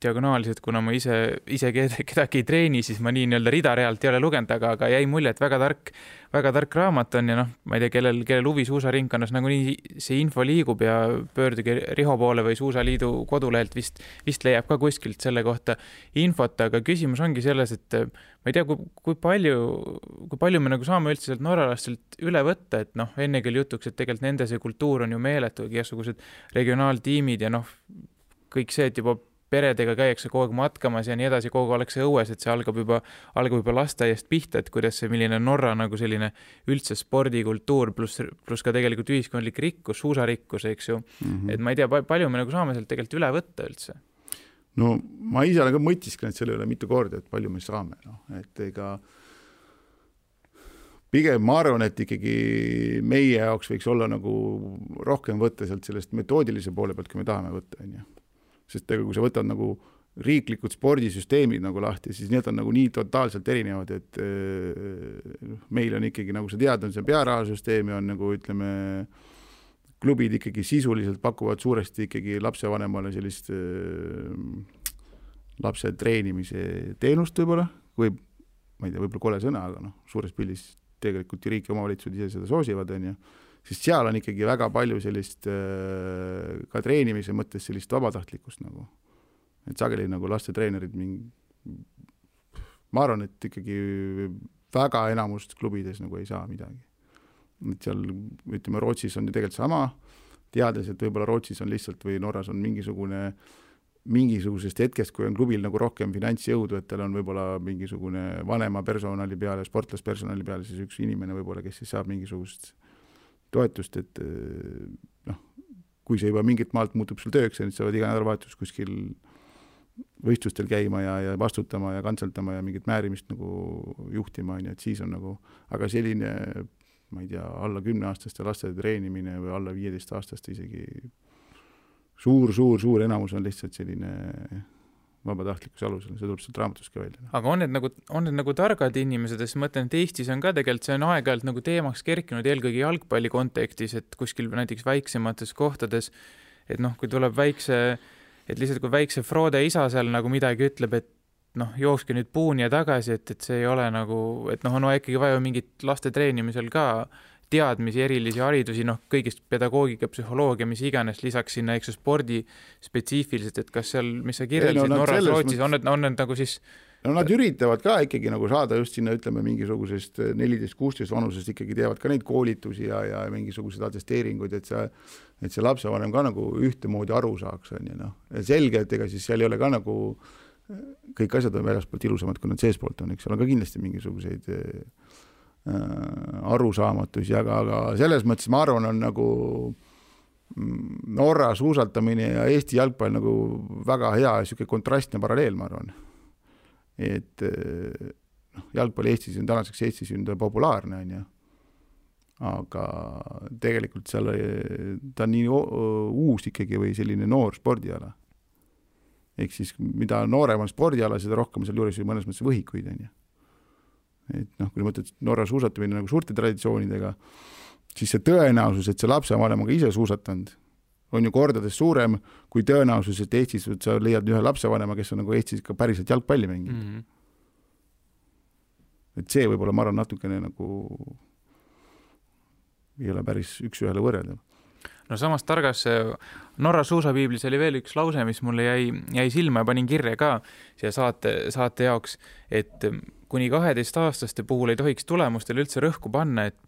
diagonaaliselt, kuna ma ise kedagi ei treeni, siis ma nii nii-öelda ridarealt ei ole lugenud, aga jäi mulje, et väga tark raamat on ja noh, ma ei tea, kellel huvi suusaringkonnas nagu nii see info liigub ja pöörduge Riho poole või Suusaliidu kodulehelt vist leiab ka kuskilt selle kohta infot, aga küsimus ongi selles, et ma ei tea, kui palju me nagu saame üldse sealt norralastelt üle võtta, et noh, enne küll jutuks, et tegelikult nende see kultuur on ju meeletu, igasugused regionaaltiimid ja noh, kõik see, et juba peredega käiakse kogu aeg matkamas ja nii edasi, kogu aeg ollakse õues, et see algab juba lasteaiast pihta, et kuidas see, milline Norra nagu selline üldse spordikultuur pluss ka tegelikult ühiskondlik rikkus, suusarikkus, eks ju. Et ma ei tea, palju me nagu saame sealt tegelikult üle võtta üldse. No ma ise olen ka mõtisklenud selle üle mitu korda, et palju me saame, no, et ega pigem ma arvan, et ikkagi meie jaoks võiks olla nagu rohkem võtta sealt sellest metoodilise poole pealt, kui me tahame võtta, on ju. Sest ega kui sa võtad nagu riiklikud spordisüsteemid nagu lahti, siis need on nagu nii totaalselt erinevad, et meil on ikkagi, nagu sa tead, on see pearahasüsteemi, on nagu ütleme, klubid ikkagi sisuliselt pakuvad suuresti ikkagi lapsevanemale sellist lapse treenimise teenust võib-olla, või ma ei tea, võib-olla kole sõna, aga noh, suures pildis tegelikult riik ja omavalitsused ise seda soosivad, on ju. Sest seal on ikkagi väga palju sellist ka treenimise mõttes sellist vabatahtlikkust nagu. Et sageli nagu lastetreenerid ma arvan, et ikkagi väga enamust klubides nagu ei saa midagi. Et seal, ütleme, Rootsis on ju tegelikult sama, teades, et võib-olla Rootsis on lihtsalt või Norras on mingisugusest hetkest, kui on klubil nagu rohkem finantsjõudu, et tal on võib-olla mingisugune vanema personali peale, sportlaspersonali peale, siis üks inimene võib-olla, kes siis saab mingisugust toetust, et noh, kui see juba mingit maalt muutub sul tööks, siis saavad iga nädalavahetus kuskil võistlustel käima ja vastutama ja kantseltama ja mingit määrimist nagu juhtima, et siis on nagu, aga selline, ma ei tea, alla 10-aastaste laste treenimine või alla 15-aastaste isegi suur enamus on lihtsalt selline vabatahtlikkuse alusel, see tuleb sealt raamatust ka välja. Aga on need nagu targad inimesed, sest mõtlen, et Eestis on ka tegelikult, see on aeg-ajalt nagu teemaks kerkinud eelkõige jalgpalli kontekstis, et kuskil näiteks väiksemates kohtades, et noh, kui tuleb et lihtsalt kui väikse Frode isa seal nagu midagi ütleb, et noh, jookske nüüd puuni ja tagasi, et see ei ole nagu, et noh, on ikkagi vaja mingit laste treenimisel ka teadmisi, erilisi haridusi, noh, kõigist pedagoogika, psühholoogia, mis iganes, lisaks sinna, eks spordi spetsiifiliselt, et kas seal, mis sa kirjeldasid Norras, Rootsis, on need nagu siis... No nad üritavad ka ikkagi nagu saada just sinna, ütleme, mingisugusest 14-16 vanusest ikkagi teevad ka neid koolitusi ja mingisugused atesteeringuid, et see lapsevanem ka nagu ühtemoodi aru saaks, on ju, noh. Selge, et ega siis seal ei ole ka nagu kõik asjad on väljaspoolt ilusamad, kui nad seespoolt on, eks seal on ka kindlasti mingisuguseid arusaamatusi, aga selles mõttes ma arvan, on nagu Norra suusatamine ja Eesti jalgpall nagu väga hea ja selline kontrastne paralleel, ma arvan. Et jalgpall Eestis on tänaseks Eestis populaarne, on ju. Aga tegelikult seal ta on nii uus ikkagi või selline noor spordiala. Ehk siis mida noorem on spordiala, seda rohkem seal juures mõnes mõttes võhikuid, on ju. Et noh, kui mõtled Norra suusatamine nagu suurte traditsioonidega, siis see tõenäosus, et see lapsevanem on ka ise suusatanud, on ju kordades suurem kui tõenäosus, et Eestis sa leiad ühe lapsevanema, kes on nagu Eestis ka päriselt jalgpalli mänginud. Et see võib-olla ma arvan natukene nagu ei ole päris üks-ühele võrreldav. No samas targas Norra suusapiiblis oli veel üks lause, mis mulle jäi silma ja panin kirja ka siia saate jaoks, et kuni 12-aastaste puhul ei tohiks tulemustel üldse rõhku panna, et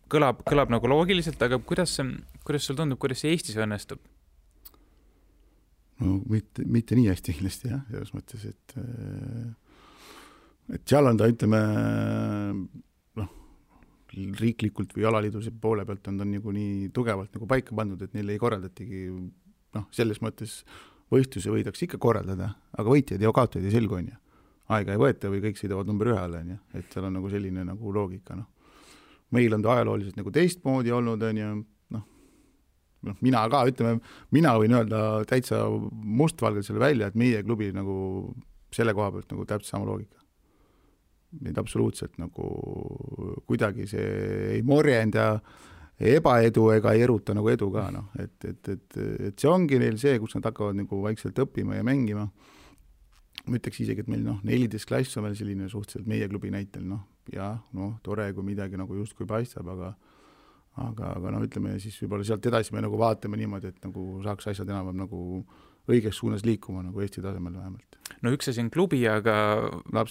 kõlab nagu loogiliselt, aga kuidas sul tundub, kuidas see Eestis õnnestub? No mitte nii hästi kindlasti, jah, selles mõttes, et seal on ta, ütleme, riiklikult või alaliiduse poole pealt on ta nagu nii tugevalt nagu paika pandud, et neil ei korraldatigi, selles mõttes võistluse võidaks ikka korraldada, aga võitjad ja kaotajad ei selgu, on ju. Aega ei võeta või kõik sõidavad number 1, on ju, et seal on nagu selline nagu loogika, Meil on ta ajalooliselt nagu teistmoodi olnud, on ju, mina ka, ütleme, mina võin öelda täitsa mustvalgelt selle välja, et meie klubi nagu selle koha pealt nagu täpselt sama loogika. Neid absoluutselt nagu kuidagi see ei morjenda ebaedu ega ei eruta nagu edu ka, et see ongi neil see, kus nad hakkavad nagu vaikselt õppima ja mängima. Ma ütleks isegi, et meil 14 klass on veel selline suhteliselt meie klubi näitel, tore, kui midagi nagu just kui paistab, aga ütleme siis võib-olla sealt edasi me nagu vaatame niimoodi, et nagu saaks asjad enam nagu õiges suunas liikuma nagu Eesti tasemel vähemalt. no üks asi on klubi, aga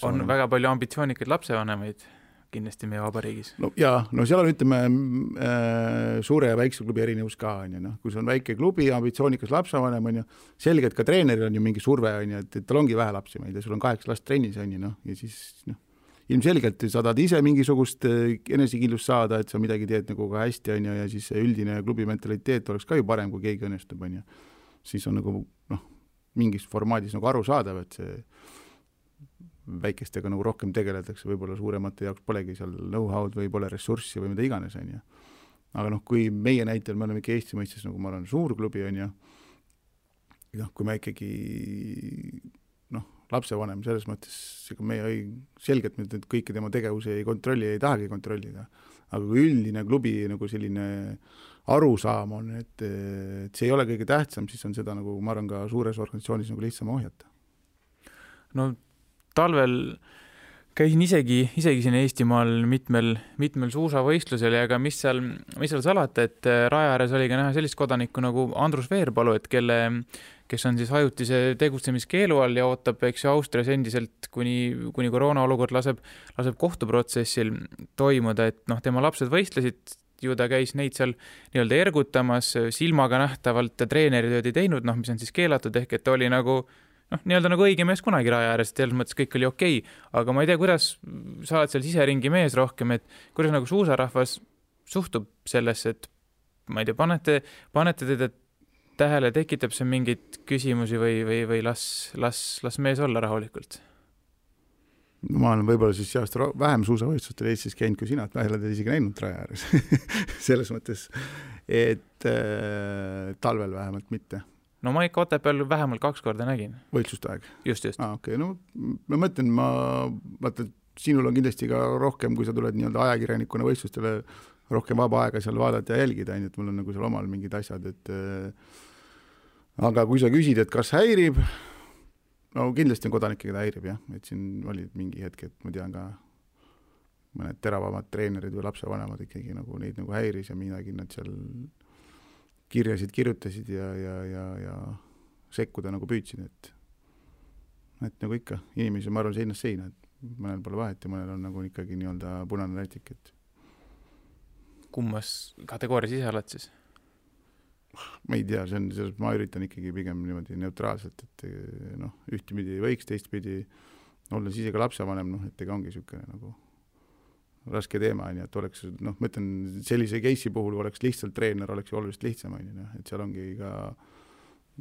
on väga palju ambitsioonikaid lapsevanemaid kindlasti meie vabariigis. No jaa, no seal on, ütleme, suure ja väikse klubi erinevus ka, on ju, noh, kui see on väike klubi, ambitsioonikas lapsevanem, on ju, selgelt ka treeneril on ju mingi surve, on ju, et tal ongi vähe lapsi, ma ei tea, sul on 8 last trennis, on ju, noh, ja siis, noh, ilmselgelt sa tahad ise mingisugust enesekindlust saada, et sa midagi teed nagu ka hästi, on ju, ja siis üldine klubi mentaliteet oleks ka ju parem, kui keegi õnnestub, on ju. Siis on nagu, noh, mingis formaadis nagu aru saadav, et see väikestega nagu rohkem tegeletakse, võib-olla suuremate jaoks polegi seal know-how'd või pole ressurssi või mida iganes, on ju. Aga noh, kui meie näitel me oleme ikka Eesti mõistes, nagu ma olen suur klubi, on ju, noh, kui me ikkagi, noh, lapsevanem selles mõttes, ega meie selgelt nüüd kõike tema tegevuse ei kontrolli, ei tahagi kontrollida. Aga kui üldine klubi nagu selline arusaam on, et see ei ole kõige tähtsam, siis on seda nagu, ma arvan, ka suures organisatsioonis nagu lihtsam ohjata. No talvel käisin isegi siin Eestimaal mitmel suusavõistlusel ja ega mis seal salata, et raja ääres oli ka näha sellist kodanikku nagu Andrus Veerpalu, et kes on siis ajutise tegutsemiskeelu all ja ootab, eks ju, Austrias endiselt, kuni koroona olukord laseb kohtuprotsessil toimuda, et noh, tema lapsed võistlesid, ju ta käis neid seal nii-öelda ergutamas, silmaga nähtavalt treeneritööd ei teinud, noh, mis on siis keelatud, ehk et oli nagu noh, nii-öelda nagu õige mees kunagi raja ääres, et selles mõttes kõik oli okei. Aga ma ei tea, kuidas sa oled seal siseringi mees rohkem, et kuidas nagu suusarahvas suhtub sellesse, et ma ei tea, panete teda tähele, tekitab see mingeid küsimusi või las mees olla rahulikult? Ma olen võib-olla siis seast vähem suusavõistlustel Eestis käinud kui sina, et ma ei ole teda isegi näinud raja ääres. Selles mõttes, et talvel vähemalt mitte. No ma ikka Otepääl vähemalt 2 korda nägin. Võistluste aeg? Just. Okei, no ma mõtlen, vaata, sinul on kindlasti ka rohkem, kui sa tuled nii-öelda ajakirjanikuna võistlustele, rohkem vaba aega seal vaadata ja jälgida, et mul on nagu seal omal mingid asjad, et aga kui sa küsid, et kas häirib, no kindlasti on kodanikke, keda häirib, jah, et siin oli mingi hetk, et ma tean ka mõned teravamad treenerid või lapsevanemad ikkagi nagu neid nagu häiris ja midagi nad seal kirjasid kirjutasid ja sekkuda nagu püüdsid, et nagu ikka, inimesi ma arvan seinast seina, et mõnel pole vahet ja mõnel on nagu ikkagi nii-öelda punane rätik, et kummas kategoorias ise oled siis? Ma ei tea, ma üritan ikkagi pigem niimoodi neutraalselt, et noh, ühtpidi võiks, teistpidi olles ise ka lapsevanem, noh, et ega ongi niisugune nagu raske teema, et oleks, noh, ma ütlen, sellise case'i puhul oleks lihtsalt treener, oleks ju oluliselt lihtsam, et seal ongi ka,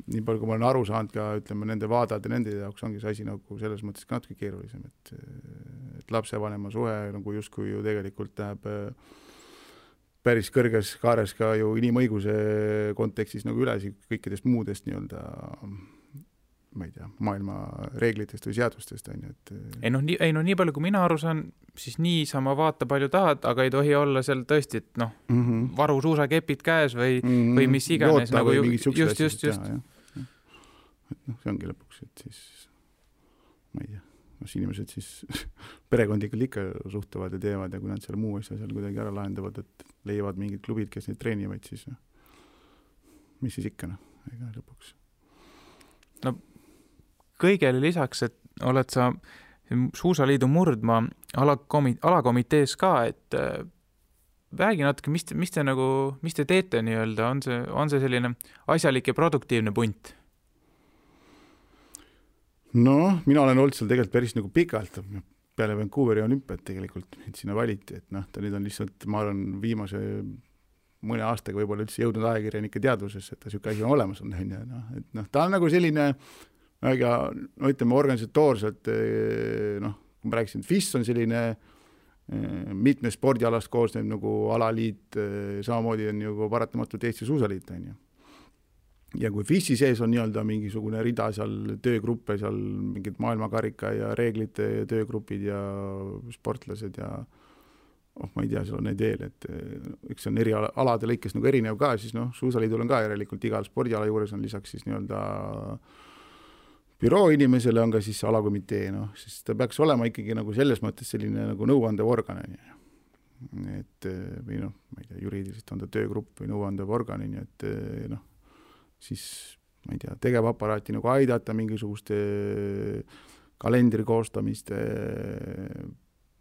nii palju kui ma olen aru saanud ka, ütleme, nende vaadade, nende jaoks ongi see asi nagu selles mõttes ka natuke keerulisem, et lapsevanema suhe nagu justkui ju tegelikult läheb päris kõrges kaares ka ju inimõiguse kontekstis nagu üles kõikidest muudest nii-öelda ma ei tea, maailma reeglitest või seadustest, on ju, et nii palju kui mina aru saan, siis niisama vaata palju tahad, aga ei tohi olla seal tõesti, et noh, varu suusakepid käes või mis iganes. Joota nagu või mingid just. Et noh, see ongi lõpuks, et siis ma ei tea, inimesed siis perekondlikult ikka suhtuvad ja teevad ja kui nad seal muu asja seal kuidagi ära lahendavad, et leiavad mingid klubid, kes neid treenivad, siis mis siis ikka, ega lõpuks. No kõigele lisaks, et oled sa Suusaliidu Murdmaa alakomitees ka, et räägi natuke, mis te teete nii-öelda, on see selline asjalik ja produktiivne punt? No, mina olen olnud seal tegelikult päris nagu pikalt, peale Vancouveri olümpiat tegelikult, et sinna valiti, et noh, ta nüüd on lihtsalt, ma arvan, viimase mõne aastaga võib-olla üldse jõudnud ajakirjanike teadvusesse, et ta niisugune asi on olemas, et noh, ta on nagu selline, ütleme organisatoorselt, noh, kui ma rääkisin, et FIS on selline mitme spordialast koosnev nagu alaliit, samamoodi on ju paratamatult Eesti Suusaliit, on ju. Ja kui FIS-i sees on nii-öelda mingisugune rida seal töögruppe, seal mingid maailmakarika ja reeglite töögrupid ja sportlased ja ma ei tea, seal on neid veel, et üks on eri alade lõikes nagu erinev ka, siis noh, Suusaliidul on ka järelikult igal spordiala juures on lisaks siis nii-öelda büroo inimesele on ka siis alakomitee, noh, siis ta peaks olema ikkagi nagu selles mõttes selline nagu nõuandev organ, et või noh, ma ei tea, juriidiliselt on ta töögrupp või nõuandev organ, et noh, siis ma ei tea, tegevaparaati nagu aidata mingisuguste kalendri koostamiste,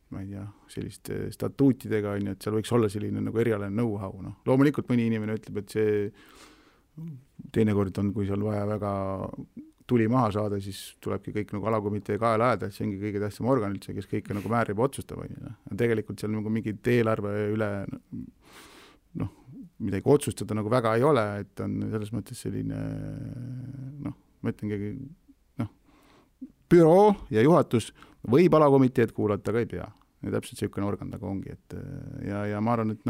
ma ei tea, selliste statuutidega, on ju, et seal võiks olla selline nagu erialane know-how, noh. Loomulikult mõni inimene ütleb, et see teinekord on, kui seal vaja väga tuli maha saada, siis tulebki kõik nagu alakomitee kaela ajada, et see ongi kõige tähtsam organ üldse, kes kõike nagu määrib ja otsustab. Tegelikult seal nagu mingid eelarve üle midagi otsustada nagu väga ei ole, et on selles mõttes selline, ma ütlengi, büroo ja juhatus võib alakomiteed kuulata, aga ei pea. Ja täpselt selline organ taga ongi, et ja ma arvan, et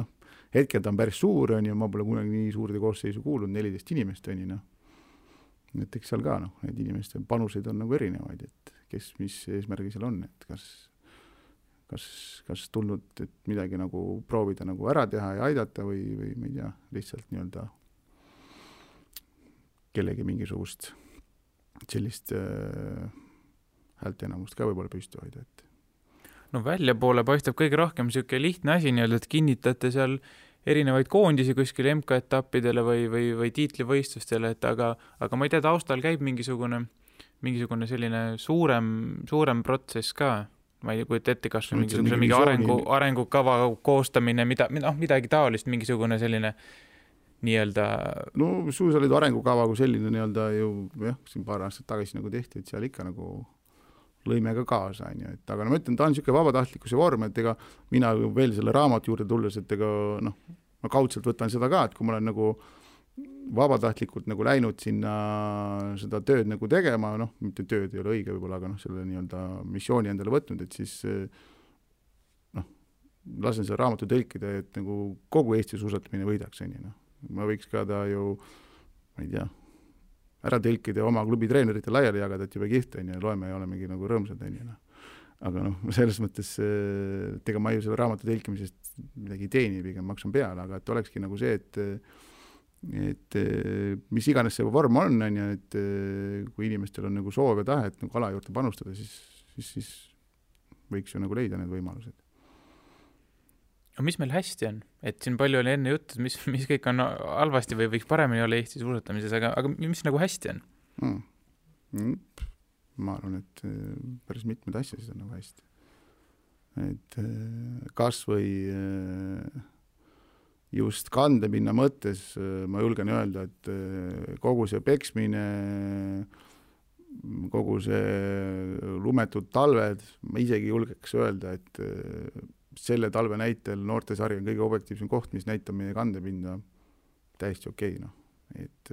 hetkel ta on päris suur, on ju, ma pole kunagi nii suurde koosseisu kuulnud, 14 inimest on ju, et eks seal ka, need inimeste panuseid on nagu erinevaid, et kes, mis eesmärgi seal on, et kas tulnud, et midagi nagu proovida nagu ära teha ja aidata või ma ei tea, lihtsalt nii-öelda kellegi mingisugust sellist häälteenamust ka võib-olla püsti hoida, et no välja poole paistab kõige rohkem siuke lihtne asi nii-öelda, et kinnitate seal erinevaid koondisi kuskil MK-etappidele või tiitlivõistlustele, et aga ma ei tea, taustal käib mingisugune selline suurem protsess ka. Ma ei kujuta ette, kas on mingi arengukava koostamine, midagi taolist, mingisugune selline nii-öelda... No suusaliidu arengukava kui selline nii-öelda ju, siin paar aastat tagasi nagu tehti, et seal ikka nagu lõime ka kaasa, on ju, et aga ma ütlen, ta on niisugune vabatahtlikkuse vorm, et ega mina veel selle raamatu juurde tulles, et ega ma kaudselt võtan seda ka, et kui ma olen nagu vabatahtlikult nagu läinud sinna seda tööd nagu tegema, mitte tööd ei ole õige võib-olla, aga selle nii-öelda missiooni endale võtnud, et siis lasen selle raamatu tõlkida, et nagu kogu Eesti suusatamine võidaks, on ju. Ma võiks ka ta ju, ma ei tea, ära tõlkida ja oma klubi treenerite laiali jagada, et juba kihvt on ja loeme ja olemegi nagu rõõmsad on ju. Aga selles mõttes ega ma ju selle raamatu tõlkimisest midagi teeni, pigem maksan peale, aga et olekski nagu see, et mis iganes see vorm on ja et kui inimestel on nagu soov ja tahe, et nagu ala juurde panustada, siis võiks ju nagu leida need võimalused. No mis meil hästi on? Et siin palju oli enne juttu, mis kõik on halvasti või võiks paremini olla Eesti suusatamises, aga mis nagu hästi on? Ma arvan, et päris mitmed asjasid on nagu hästi. Et kas või just kandepinna mõttes ma julgen öelda, et kogu see peksmine, kogu see lumetud talved, ma isegi julgeks öelda, et selle talve näitel noortesari on kõige objektiivsem koht, mis näitab meie kandepinda täiesti okei. Et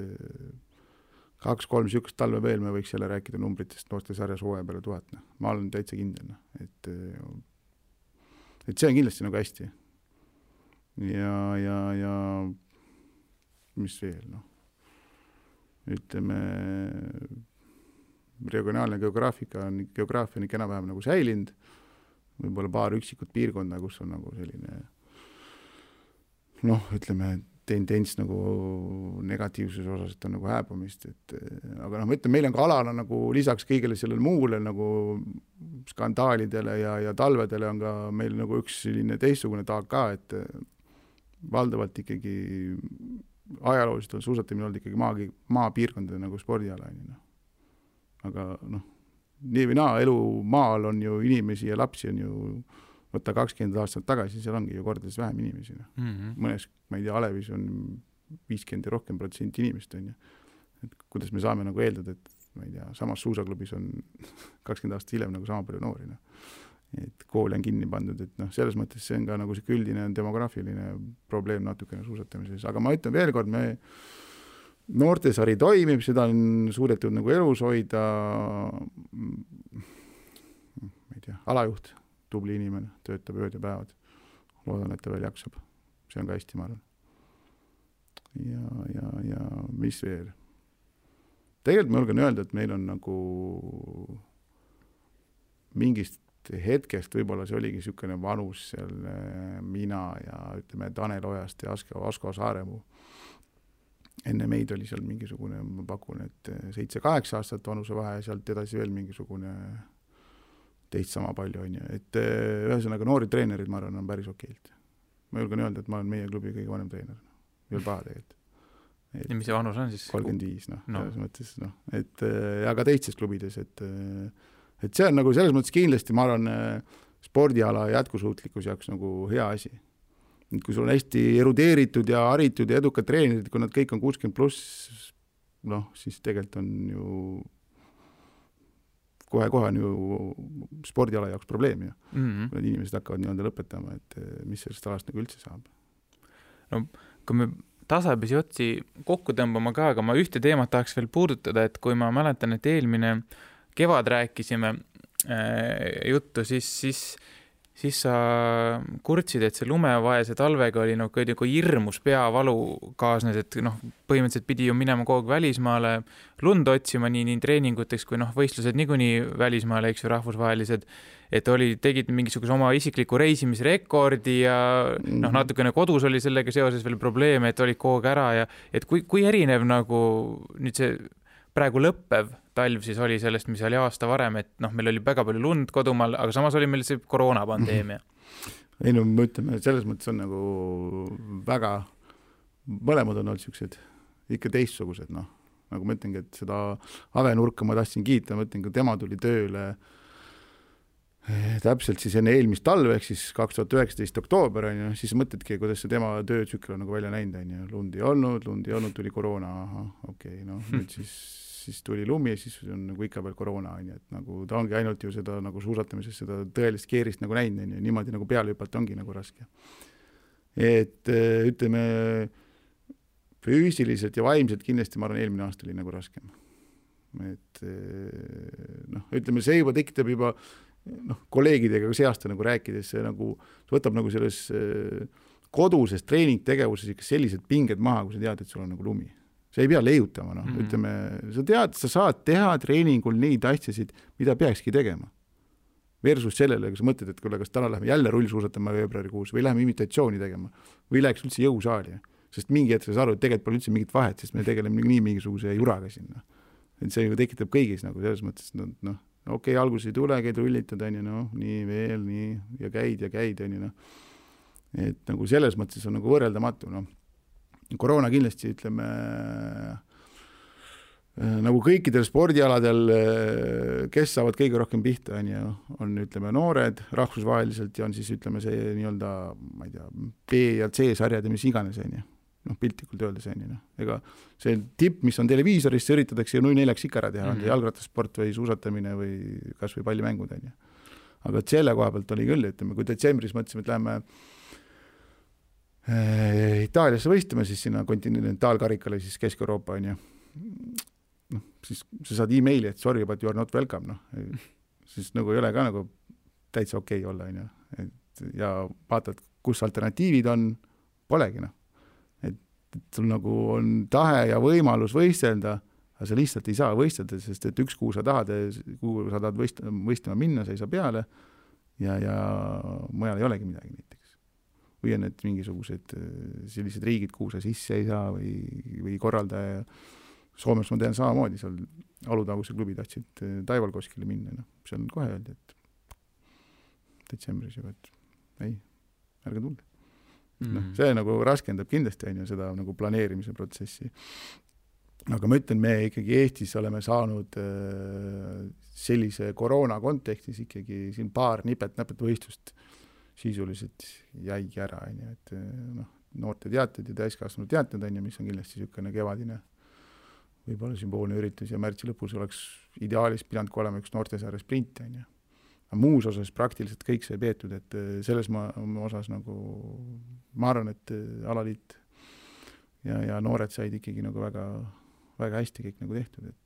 2-3 sükust talve veel me võiks jälle rääkida numbritest noortesarjas hooaja peale 1000. Ma olen täitsa kindel. Et see on kindlasti nagu hästi. Ja mis veel? Ütleme, regionaalne geograafia on enam-vähem nagu säilinud. Võib-olla paar üksikut piirkonda, kus on nagu selline ütleme, tendents nagu negatiivses osas, et on nagu hääbumist, aga ma ütlen, meil on ka alana nagu lisaks kõigele sellele muule nagu skandaalidele ja talvedele on ka meil nagu üks selline teistsugune taag ka, et valdavalt ikkagi ajalooliselt on suusatamine olnud ikkagi maapiirkondade nagu spordiala. Aga nii või naa, elu maal on ju inimesi ja lapsi on ju võtta 20 aastat tagasi, seal ongi ju kordades vähem inimesi. Mõnes, ma ei tea, Alevis on 50 ja rohkem % inimest on ju. Et kuidas me saame nagu eeldada, et ma ei tea, samas suusaklubis on 20 aastat hiljem nagu sama palju noori. Et kool on kinni pandud, et selles mõttes see on ka nagu see üldine demograafiline probleem natukene suusatamises. Aga ma ütlen veel kord, noortesari toimib, seda on suudetud nagu elus hoida, ma ei tea, alajuht, tubli inimene, töötab ööd ja päevad. Loodan, et ta veel jaksab. See on ka hästi, ma arvan. Ja mis veel? Tegelikult ma julgen öelda, et meil on nagu mingist hetkest, võib-olla see oligi niisugune vanus seal mina ja ütleme Tanel Ojast ja Asko Saaremuu. Enne meid oli seal mingisugune, ma pakun, et 7-8 aastat vanuse vahe ja sealt edasi veel mingisugune teist sama palju on ju. Et ühesõnaga noori treenerid, ma arvan, on päris okeilt. Ma julgen öelda, et ma olen meie klubi kõige vanem treener. Veel paha tegelikult. Ja mis see vanus on siis? 35, selles mõttes, aga teistes klubides, et see on nagu selles mõttes kindlasti, ma arvan, spordiala jätkusuutlikkus jaoks nagu hea asi. Kui sul on hästi erudeeritud ja haritud ja edukad treenerid, kui nad kõik on 60+, siis tegelikult on ju kohe on ju spordiala jaoks probleem ju. Kui need inimesed hakkavad nii-öelda lõpetama, et mis sellest alast nagu üldse saab. No, kui me tasapisi otsi kokku tõmbama ka, aga ma ühte teemat tahaks veel puudutada, et kui ma mäletan, et eelmine kevad rääkisime juttu, siis sa kurtsid, et see lumevaese talvega oli nagu hirmus peavalu kaasnes, et põhimõtteliselt pidi ju minema kogu aeg välismaale lund otsima nii treeninguteks kui võistlused niikuinii välismaale, eks ju, rahvusvahelised, et tegid mingisuguse oma isikliku reisimisrekordi ja natukene kodus oli sellega seoses veel probleeme, et olid kogu aeg ära ja et kui erinev nagu nüüd see praegu lõppev talv siis oli sellest, mis oli aasta varem, et meil oli väga palju lund kodumaal, aga samas oli meil see koroonapandeemia. Ei me ütleme, selles mõttes on nagu väga, mõlemad on olnud sellised ikka teistsugused, nagu ma ütlengi, et seda Avenurka ma tahtsin kiita, ma ütlen, kui tema tuli tööle täpselt siis enne eelmist talve, ehk siis 2019 oktoober, siis mõtledki, kuidas see tema töötsükkel on nagu välja näinud, lund ei olnud, tuli koroona, nüüd siis tuli lumi ja siis on nagu ikka veel koroona, et nagu ta ongi ainult ju seda nagu suusatamises seda tõelist keerist nagu näinud, niimoodi nagu peale hüpata ongi nagu raske. Et ütleme, füüsiliselt ja vaimselt kindlasti ma arvan, eelmine aasta oli nagu raskem. Et ütleme, see juba tekitab juba kolleegidega see aasta nagu rääkides, see nagu võtab nagu selles koduses treeningtegevuses ikka sellised pinged maha, kui sa tead, et sul on nagu lumi. Sa ei pea leiutama, ütleme, sa tead, sa saad teha treeningul neid asjasid, mida peakski tegema. Versus sellele, kui sa mõtled, et kas täna lähme jälle rullsuusatama veebruarikuus või läheme imitatsiooni tegema või läheks üldse jõusaali. Sest mingi hetk sa aru, et tegelikult pole üldse mingit vahet, sest me tegeleme nii mingisuguse juraga sinna. Et see ju tekitab kõigis nagu selles mõttes, okei, alguses ei tule, käid rullitad, nii veel, nii ja käid, Et nagu selles mõttes on nagu võrreldamatu, Koroona kindlasti, ütleme, nagu kõikidel spordialadel, kes saavad kõige rohkem pihta, on, ütleme, noored rahvusvaheliselt ja on siis, ütleme, see nii-öelda, ma ei tea, B ja C sarjad ja mis iganes, piltlikult öeldes, ega see tipp, mis on televiisoris, see üritatakse ju 0-4 ikka ära teha, jalgrattasport või suusatamine või kas või pallimängud, aga selle koha pealt oli küll, ütleme, kui detsembris mõtlesime, et lähme Itaaliasse võistlema, siis sinna kontinentaalkarikale, siis Kesk-Euroopa, siis sa saad e-maili, et sorry, but you are not welcome, siis nagu ei ole ka nagu täitsa okei olla, ja vaatad, kus alternatiivid on, polegi, et sul nagu on tahe ja võimalus võistelda, aga sa lihtsalt ei saa võistelda, sest et üks kuu sa tahad võistlema minna, sa ei saa peale ja mujal ei olegi midagi näiteks. Või on need mingisugused sellised riigid, kuhu sa sisse ei saa või korraldaja. Soomes ma tean samamoodi, seal Alutaguse klubi tahtsid Taivalkoskile minna, seal on kohe öeldi, et detsembris juba, et ei, ärge tulge. See nagu raskendab kindlasti seda nagu planeerimise protsessi. Aga ma ütlen, me ikkagi Eestis oleme saanud sellise koroona kontekstis ikkagi siin paar nipet-näpet võistlust sisuliselt jäigi ära, et noorte teated ja täiskasvanud teated, mis on kindlasti niisugune kevadine võib-olla sümboolne üritus ja märtsi lõpus oleks ideaalis pidanud olema üks noortesaare sprint, aga muus osas praktiliselt kõik see peetud, et selles osas nagu ma arvan, et alaliit ja noored said ikkagi nagu väga, väga hästi kõik nagu tehtud, et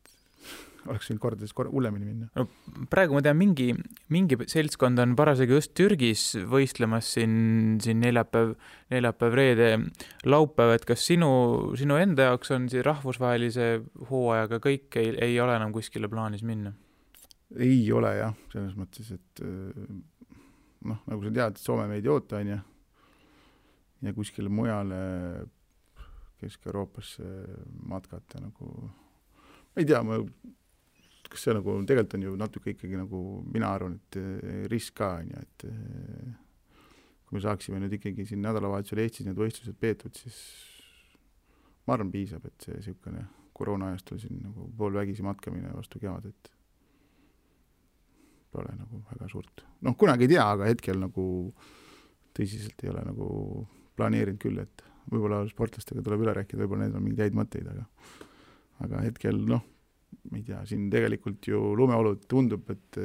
oleks võinud kordades hullemini minna. No, praegu ma tean, mingi seltskond on parasjagu just Türgis võistlemas siin neljapäev, reede, laupäev, et kas sinu enda jaoks on siin rahvusvahelise hooajaga kõik ei ole enam kuskile plaanis minna? Ei ole jah, selles mõttes, et nagu sa tead, Soome meid ei oota, ja kuskile mujale Kesk-Euroopasse matkata nagu ma ei tea, kas see nagu tegelikult on ju natuke ikkagi nagu mina arvan, et risk ka, et kui me saaksime nüüd ikkagi siin nädalavahetusel Eestis need võistlused peetud, siis ma arvan, piisab, et see siukene koroona ajastul siin nagu poolvägisi matkamine vastu kevadet pole nagu väga suurt. Kunagi ei tea, aga hetkel nagu tõsiselt ei ole nagu planeerinud küll, et võib-olla sportlastega tuleb üle rääkida, võib-olla need on mingeid häid mõtteid, aga hetkel, ma ei tea, siin tegelikult ju lumeolud tundub, et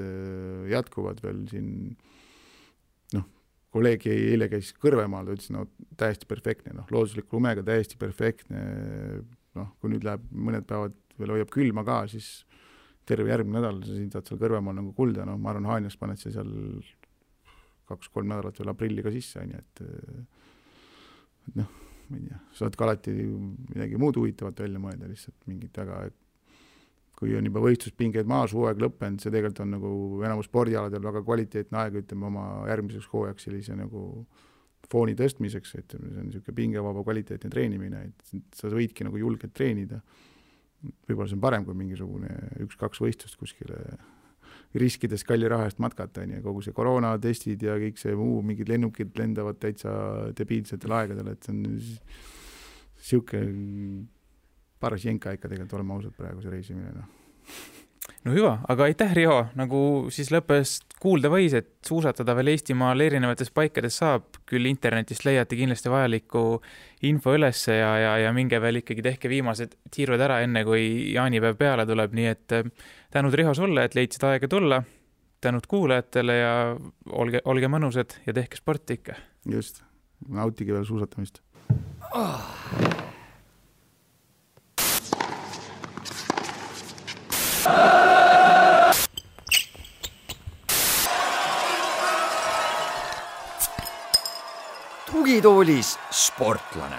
jätkuvad veel siin, kolleeg eile käis Kõrvemaal, ta ütles, täiesti perfektne, loodusliku lumega täiesti perfektne, kui nüüd läheb mõned päevad veel hoiab külma ka, siis terve järgmine nädal sa siin saad seal Kõrvemaal nagu kulda, ma arvan, Haanjas paned see seal 2-3 nädalat veel aprilli ka sisse, et ma ei tea, saad ka alati midagi muud huvitavat välja mõelda, lihtsalt mingit väga, kui on juba võistluspingeid maas, hooaeg lõppenud, see tegelikult on nagu enamus spordialadel väga kvaliteetne aeg, ütleme oma järgmiseks hooajaks sellise nagu fooni tõstmiseks, et see on niisugune pingevaba kvaliteetne treenimine, et sa võidki nagu julgelt treenida. Võib-olla see on parem kui mingisugune 1-2 võistlust kuskile riskides kalli raha eest matkata, kogu see koroonatestid ja kõik see muu, mingid lennukid lendavad täitsa debiilsetel aegadel, et see on siuke paras jenka ikka tegelikult olema ausalt praegu see reisimine. No hüva, aga aitäh, Riho, nagu siis lõppes kuulda võis, et suusatada veel Eestimaal erinevates paikades saab, küll internetist leiate kindlasti vajaliku info ülesse ja minge veel ikkagi tehke viimased tiirud ära enne, kui jaanipäev peale tuleb, nii et tänud, Riho, sulle, et leidsid aega tulla, tänud kuulajatele ja olge mõnusad ja tehke sporti ikka. Just, nautige veel suusatamist. Tugitoolis sportlane.